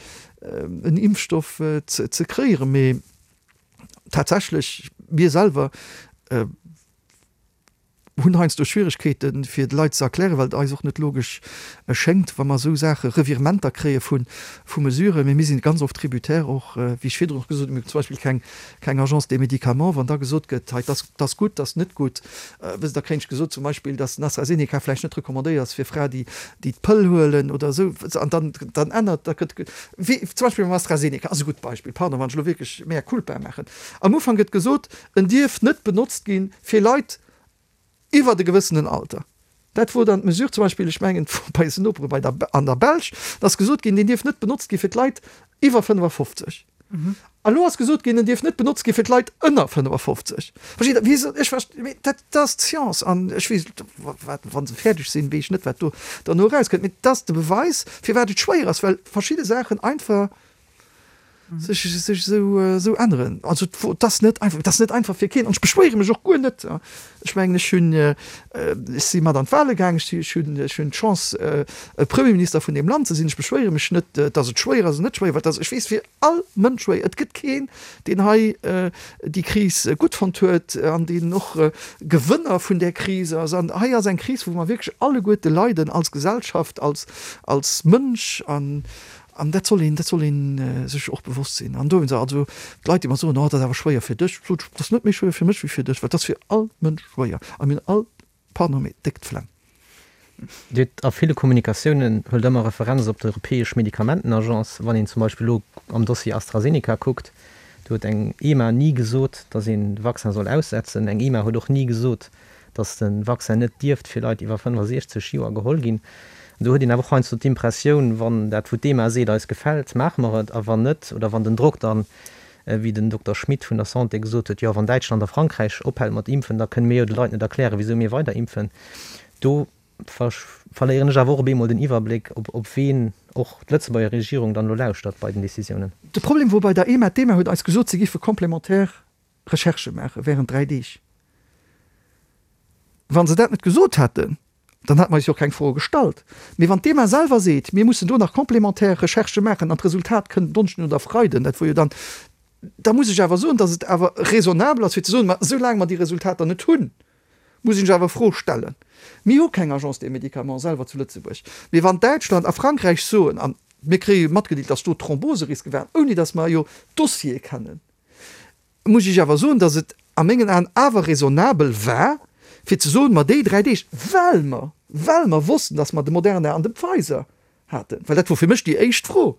en Impfstoff ze kréieren. Mee tatsächlech, mir selwer hunn heiansdo Schwieregkeeten, fir de Leit ze erklären, well et eis och net logesch schéngt, wa mer esou Saache, Revirementer kréie vu Mesuren. Mee mir sinn ganz oft tributaire och, wéi ech virdrun och gesot hunn, mir hunn zum Beispill keng, keng Agence des médicaments. Wann da gesot gëtt, hei, dass, dass gutt, dass net gutt, wësst Der, da kréien ech gesot zum Beispill, dass den AstraZeneca vläicht net recommandéiert ass fir Frae, déi, déi d'Pëll huelen oder esou. An dann, dann ännert, da gëtt, wéi zum Beispill beim AstraZeneca ass e gutt Beispill, pardon, wann ech elo wierklech mea culpa maachen. Am Ufank gëtt gesot, en dierf net benotzt gi fir Leit iwwert e gewëssenen Alter. Dat wor dann d'Mesure zum Beispill, ech mengen, et wor bei eisen Nopere bei der, an der Belsch, da ass gesot ginn, deen dierf net benotzt gi fir d'Leit iwwer 55. A lo ass gesot ginn, en dierf net benotzt gi fir d'Leit ënner 55. Versteet Der? Wéi se, ech verst, mee dat ass d'Science an ech weess, wat, wa se fäerdeg sinn, weess ech net, wat do derno erauskënnt. Mee dat ass de Beweis, firwat et schwéier ass, well verschidde Saachen einfach sech, sech esou, esou änneren. Also et ass net einfach, et ass net einfach fir keen an ech beschwéiere mech och guer net. Ech mengen, ech hunn, ech si mat an d'Wahle gaang, ech ech hunn, ech hunn d'Chance Premierminister vun deem Land ze sinn. Ech beschwéiere mech net, datt et schwéier ass oder net schwéier, well et ass, ech weess, fir all Mënsch schwéier. Et gëtt keen, deen hei déi Kris gutt fonnt huet an deen och Gewënner vun där Kris ass. An hei ass eng Kris, wou mer wierklech alleguerte leiden als Gesellschaft, als, als Mënsch an, An dat soll een, dat soll ee sech och bewosst sinn. An dowéinst, also d'Leit, déi mer soen, oh, dat ass awer schwéier fir dech, sot ech, dat ass net méi schwéier fir mech wéi fir dech, well dat ass fir all Mënsch schwéier. A mir hunn all, pardon, mee déck d'Flemm. Dir hutt a ville Kommunikatiounen, huelt ëmmer Referenz op d'Europäesch Medikamentenagence. Wann een zum Beispill elo am Dossier AstraZeneca kuckt, do huet eng EMA ni gesot, datt een de Vaccin soll aussetzen. Eng EMA huet och ni gesot, datt de Vaccin net dierft fir Leit iwwer 65 Joer geholl ginn. An do huet een awer och heiansdo d'Impressioun, wann dat wou d'EMA seet eis gefält, maache mer et, a wann net, oder wann den Drock dann, wéi den Dokter Schmit vun der Santé gesot huet, jo wann Däitschland a Frankräich ophält mat impfen, da kënne mir jo de Leit net erklären, wisou mir weider impfen. Do verléieren ech awer och op eemol den Iwwerbléck, op ween och d'Lëtzebuerger Regierung dann elo lauschtert bei den Decisiounen. De Problem wor bei der EMA, d'EMA huet eis gesot, se géife complémentaire Recherchë maache während 3 Deeg. Wa se dat net gesot hätten, dann hätte mer eis jo och keng Froe gestallt. Mee wann d'EMA selwer seet, mir mussen do nach complémentaire Recherchë maachen an d'Resultat kënnt en Donneschden oder Freiden, dat wor jo dann, da muss ech awer soen, datt et awer raisonnabel ass fir ze soen, ma soulaang mer déi Resultater net hunn, muss ech awer Fro stellen. Mir hu keng Agence des médicaments selwer zu Lëtzebuerg. Mee wann Däitschland a Frankräich soen, a mir kréie matgedeelt, datt do Thromboseriske waren, ouni datt mer jo d'Dossiere kennen, muss ech awer soen, dass et a mengen Aen awer raisonnabel war, fir ze soen, ma déi 3 Deeg, well mer, well mer wossten, dass mer de Moderna an de Pfizer haten, well dat wor fir mech déi éischt Fro,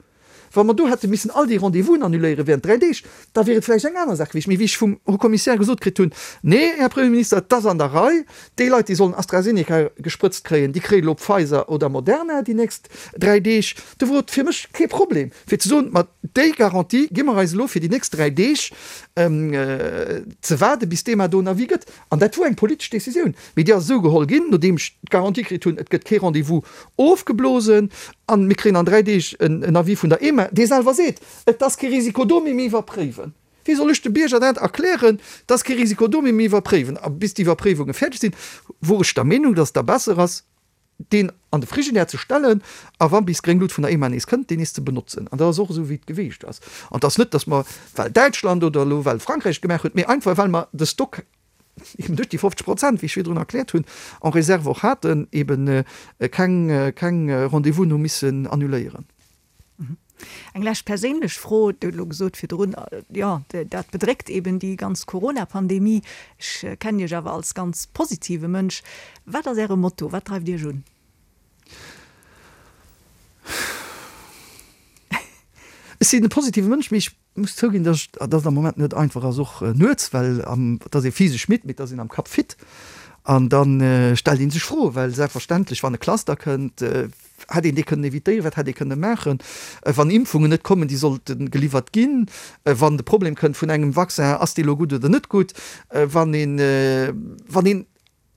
wa mer do hätte missen all déi Rendez-vousen annuléiere während 3 Deeg, da wier et vläicht eng aner Saach gewiescht. Mee wéi ech vum Haut Commissaire gesot kritt hunn, Nee, Här Premierminister, et ass an der Rei, déi Leit, déi sollen AstraZeneca gesprëtzt kréien, déi kréien elo Pfizer oder Moderna déi nächst 3 Deeg, do wor et fir mech kee Problem, fir ze soen, ma déi Garantie gi mer eis elo fir déi nächst 3 Deeg ze waarde bis d'EMA do en Avis gëtt. An dat wor eng politesch Décisioun, mee déi ass esou geholl ginn, nodeem ech d'Garantie kritt hunn, et gëtt kee Rendez-vous ofgeblosen a mir kréien an 3 Deeg en Avis vun der EMA, dee selwer seet, et ass kee Risiko do, mee mir iwwerpréiwen. Wéi soll ech de Bierger dat erklären, et ass kee Risiko do, mee mir iwwerpréiwen. A bis déi Iwwerpréiwunge fäerdeg sinn, wor ech der Meenung, datt et da besser ass, deen an de Frigidaire ze stellen a wa bis gréng Lut vun der EMA nees kënnt, deen nees ze benotzen. An dat ass och esou, wéi et geweecht ass. An et ass net, datt mer, well Däitschland oder elo well Frankräich et gemaach huet, mee einfach well mer de Stock eben duerch déi 50 Prozent, wéi ech virdrun erkläert hunn, en réserve och haten, eben keng, keng Rendez-vousen hu missen annuléieren. Eng lescht perséinlech Fro, Dir hutt elo gesot virdrun, jo, dat bedréckt eben déi ganz Corona-Pandemie. Ech kennen Iech awer als ganz positive Mënsch. Wat ass Äre Motto? Wat dreift Iech un? Ech sinn e positive Mënsch, mee ech muss zouginn, dass et am Moment net einfach ass, och nuets, well et ass ee physesch midd, mee et ass een am Kapp fit. An da stellt ee sech Froen, well selbstverständlech, wann e Cluster kënnt, hätt een dee kënnen evitéieren, wat hätt ee kënne maachen, wann Impfungen net kommen, déi sollte geliwwert ginn, wann de Problem kënnt vun engem Vaccin, ass dee lo gutt oder net gutt, wann een, wann een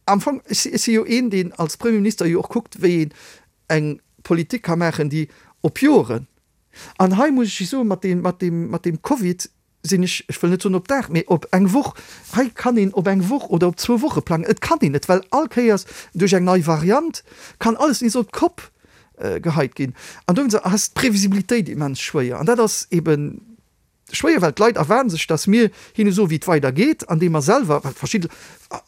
am Fong, ech si jo een, deen als Premierminister jo och kuckt, wéi een eng Politik ka maachen, déi op Joren, an hei muss ech soen, mat deem, mat deem, mat deem Covid, sinn ech, ech wëll net soen op Dag, mee op eng Woch, hei kann een op eng Woch oder op zwou Woche plangen. Et kann een net, well all Kéiers duerch eng nei Variant kann alles nees op d'Kopp geheit ginn. An dowéinst ass d'Previsibilitéit immens schwéier. An dat ass ebe schwéier, well d'Leit erwaarden sech, datt mir hinne soen, wéi et weider geet, andeem mer selwer, well verschidde,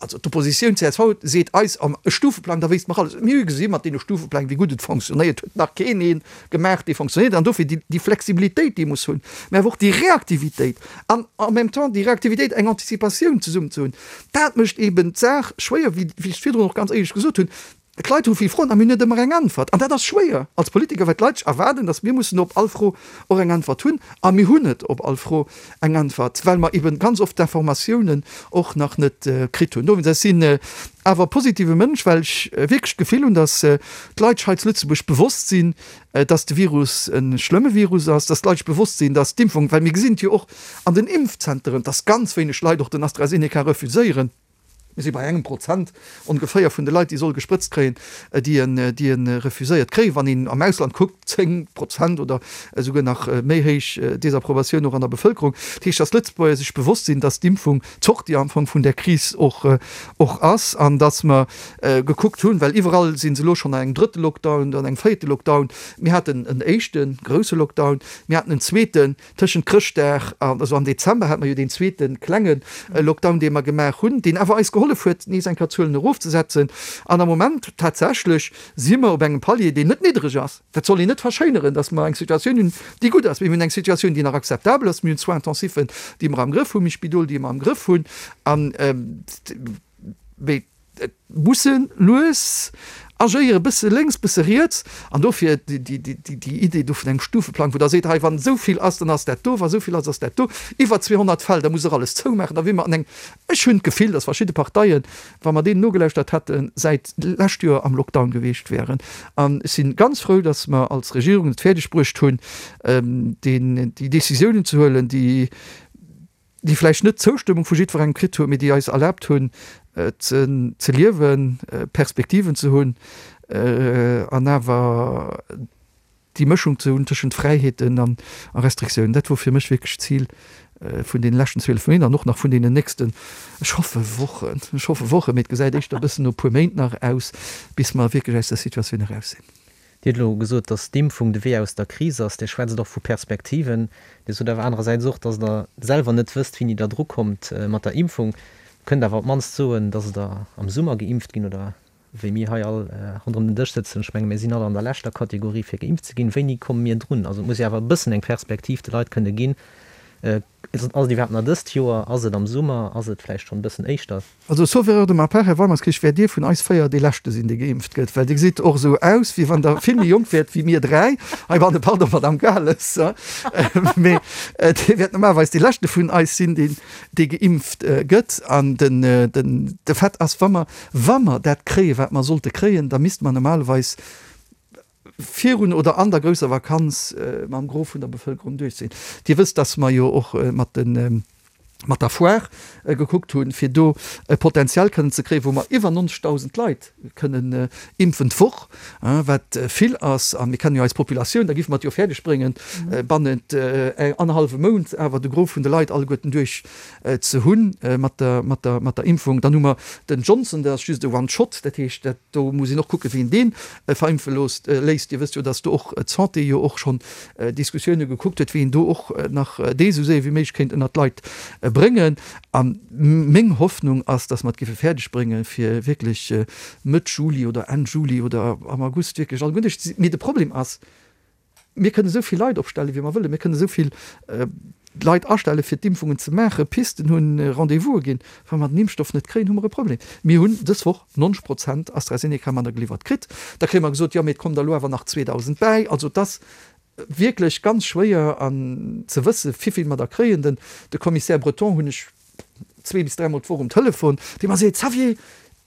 also d'Oppositioun, csv, seet eis, e Stufeplang, da wéisst mer alles. Mir hu gesi mat deene Stufepläng, wéi gutt et fonctionnéiert huet, nach keen ee gemaach, dee fonctionnéiert. An dofir déi Flexibilitéit, déi ee muss hunn, mä awer och déi Reaktivitéit an en même temps déi Reaktivitéit, eng Anticipatioun zesummen ze hunn, dat mécht eeben d'Saach schwéier, wéi ech virdrun och ganz éierlech gesot hunn. D'Leit hu vill Froen a mir hunn net ëmmer eng Äntwert. An dat ass schwéier als Politiker, well d'Leit sech erwaarden, datt mir mussen op all Fro och eng Äntwert hunn. A mir hunn net op all Fro eng Äntwert, well mer eben ganz oft d'Informatiounen och nach net kritt hunn. Dowéinst, ech sinn awer e positive Mënsch, well ech wierklech d'Gefill hunn, datt d'Leit sech hei zu Lëtzebuerg bewosst sinn, datt de Virus e schlëmme Virus ass, datt d'Leit sech bewosst sinn, datt d'Impfung, well mir gesinn et jo och an den Impfzenteren, datt ganz wéineg Leit och den AstraZeneca refuséieren. Mir si bei engem Prozent ongeféier vun de Leit, déi solle gesprëtzt kréien, déi en, déi e refuséiert kréien. Wann een am Ausland kuckt, 10 Prozent oder esouguer nach méi héich Desapprobatioun och an der Bevëlkerung. Dat heescht, dass d'Lëtzebuerger sech bewosst sinn, dass d'Impfung d'Sortie am Fong vun där Kris och, och ass an dass mer gekuckt hunn, well iwwerall si se elo schonn an engem drëtte Lockdown, an engem véierte Lockdown. Mir haten en éischte grousse Lockdown, mir haten en zweeten, Tëschent Chrëschtdag an, also am Dezember hate mer jo deen zweete klenge Lockdown, dee mer gemaach hunn, deen awer eis gehollef huet, nees eng Kéier d'Zuelen erofzesetzen. An am Moment tatsächlech si mer op engem Palier, deen net niddreg ass. Dat soll een net verschéineren, datt mer eng Situatioun hunn, déi gutt ass. Mee mir hunn eng Situatioun, déi nach akzeptabel ass. Mir hunn Soins-intensifen, déi mer am Grëff hunn, mir hu Spidol, déi mer am Grëff hunn. An, mee Et muss e lues agéieren, e bësse lénks, bësse riets. An dofir déi Idee do vun engem Stufeplang, wou Der seet, hei wann esou vill ass, dann ass dat do, wa esou vill ass, ass dat do. Iwwer 200 Fäll, da muss Der alles zoumaachen. Da wier mer an engem, ech hunn d'Gefill, datt verschidde Parteien, wa mer deenen nogelauschtert hätten, säit d'lescht Joer am Lockdown gewiescht wären. An ech si ganz frou, datt mer als Regierung et fäerdeg bruecht hunn, déi Décisiounen ze huelen, déi, déi vläicht net d'Zoustëmmung vu jiddwerengem kritt hunn, mee déi eis erlaabt hunn, ze liewen, Perspektiven ze hunn an awer déi Mëschung ze hunn tëschent Fräiheeten a Restriktiounen. Dat wor fir mech wierklech d'Zil vun deene leschten 12 Méint an och nach vun deenen nächsten, ech hoffe Wochen, ech hoffe Wochen, mee et gesäit éischter e bëssen no e puer Méint nach aus, bis mer wierklech aus der Situatioun eraus sinn. Dir hutt elo gesot, datt d'Impfung de Wee aus der Kris ass. Dir schwätzt och vu Perspektiven. Dir sot awer anerersäits och, datt Der selwer net wësst, wéini Der drukommt mat der Impfung. Kënnt awer op d'mannst soen, datt Der am Summer geimpft ginn oder wéi mir hei all ronderëm den Dësch sëtzen. Ech menge mir sinn all an der leschter Kategorie fir geimpft ze ginn. Wéini komme mir drun? Also et muss jo awer e bëssen eng Perspektiv de Leit kënne ginn. Ass et iwwerhaapt nach dëst Joer? Ass et am Summer? Ass et vläicht schonn e bëssen éischter? Also, sauf erreur de ma part, Här Weimerskirch, wäert Dir vun eis 4 dee Leschte sinn, dee geimpft gëtt, well Dir gesitt och esou aus, wéi wann Der vill méi jonk wäert wéi mir 3 heibanne, pardon, Madame Gales, mee Dir wäert normalerweis dee Leschte vun eis sinn, deen, dee geimpft gëtt. An den, den, de Fait ass, wa mer, wa mer dat kréien, wat mer sollte kréien, da misste mer normalerweis, virun oder an der grousser Vakanz mam Gros vun der Bevëlkerung duerch sinn. Dir wësst, dass mer jo och mat de mat der Foire gekuckt hunn, fir do e Potenzial kënnen ze kréien, wou mer iwwer 90.000 Leit kënnen impfen d'Woch, wat vill ass. A mir kennen jo eis Populatioun, da géife mer et jo fäerdeg bréngen, bannent annerhallwem Mount awer de Gros vun de Leit alleguerten duerch ze hunn mat der mat der mat der Impfung. Dann hu mer den Johnson, dat ass just e One-Shot, dat heescht, dat do muss een och kucken, wien dee verimpfe loosst léisst. Dir wësst jo, datt do och d'Santé jo och schonn Diskussioune gekuckt huet, wéi een do och nach dee sou séier wéi méiglech kéint ënnert d'Leit bréngen. A meng Hoffnung ass, datt mer et géife fäerdeg bréngen, fir wierklech Mëtt Juli oder Enn Juli oder am August wierklech alleguer duerch ze sinn. Mee de Problem ass, Mir kënnen esou vill Leit opstellen, wéi mer wëllen. Mir kënnen esou vill Leit astellen, fir d'Impfungen ze maachen, Pisten hunn, Rendez-vouse ginn. Wa mer den Impfstoff net kréien, hu mer e Problem. Mir hunn dës Woch 90 Prozent AstraZeneca manner geliwwert kritt. Da kréie mer gesot, jo, mee et kommen der elo awer nach 2.000 bäi. Also et ass wierklech ganz schwéier an ze wëssen, wivill mer der kréien. Den de Commissaire Breton hunn ech zwee bis dräimol d'Woch um Telefon, dee mer seet, Xavier,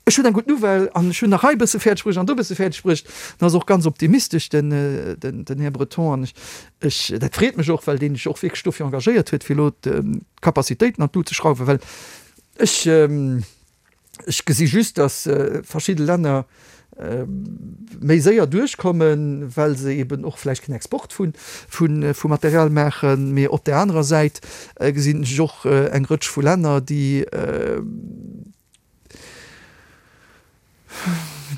ech hunn eng gutt Nouvelle an ech hunn nach hei e bësse fäerdeg bruecht an do e bësse fäerdeg bruecht. En ass och ganz optimistesch, den, den Här Breton. An ech, ech, dat freet mech och, well deen sech och wierklech dofir engagéiert huet, fir elo d'Capacitéiten an d'Lut ze schrauwen, well ech, Ech gesi just, datt verschidde Länner méi séier duerchkommen, well se eben och vläicht keen Export vu Material maachen. Mee op där anerer Säit gesinn ech och eng Rëtsch vu Länner, déi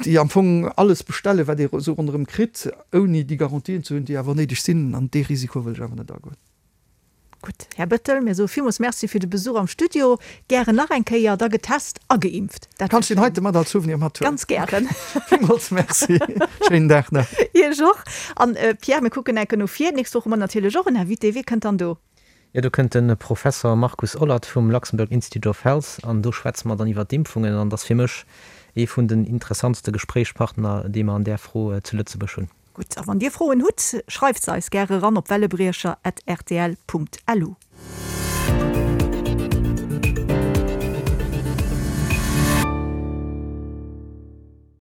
déi am Fong alles bestellen, wat ee esou ronderëm kritt, ouni déi Garantien ze hunn, déi awer néideg sinn. An dee Risiko wëll ech awer net agoen. Gutt, Här Bettel, mir soe villmools Merci fir de Besuch am Studio. Gären nach eng Kéier, da getest a geimpft. Dat Kanns deen heite mat als Souvenir mathuelen. Ganz gären. Villmools Merci. Schéinen Dag nach. Iech och. An Pierre, mir kucken enke no vir. D'nächst Woch hu mer natierlech och en Invité. Wie kënnt dann do? Jo, do kënnt de Professer Markus Ollert vum Luxembourg Institute of Health an do schwätze mer dann iwwer d'Impfungen. An et ass fir mech. Ee vun den interessantste Gespréichspartner, déi mer an där Fro zu Lëtzebuerg hunn. Gutt, a wann Dir Froen hutt, schreift se eis gäre eran op wellebriecher at rtl Punkt lu.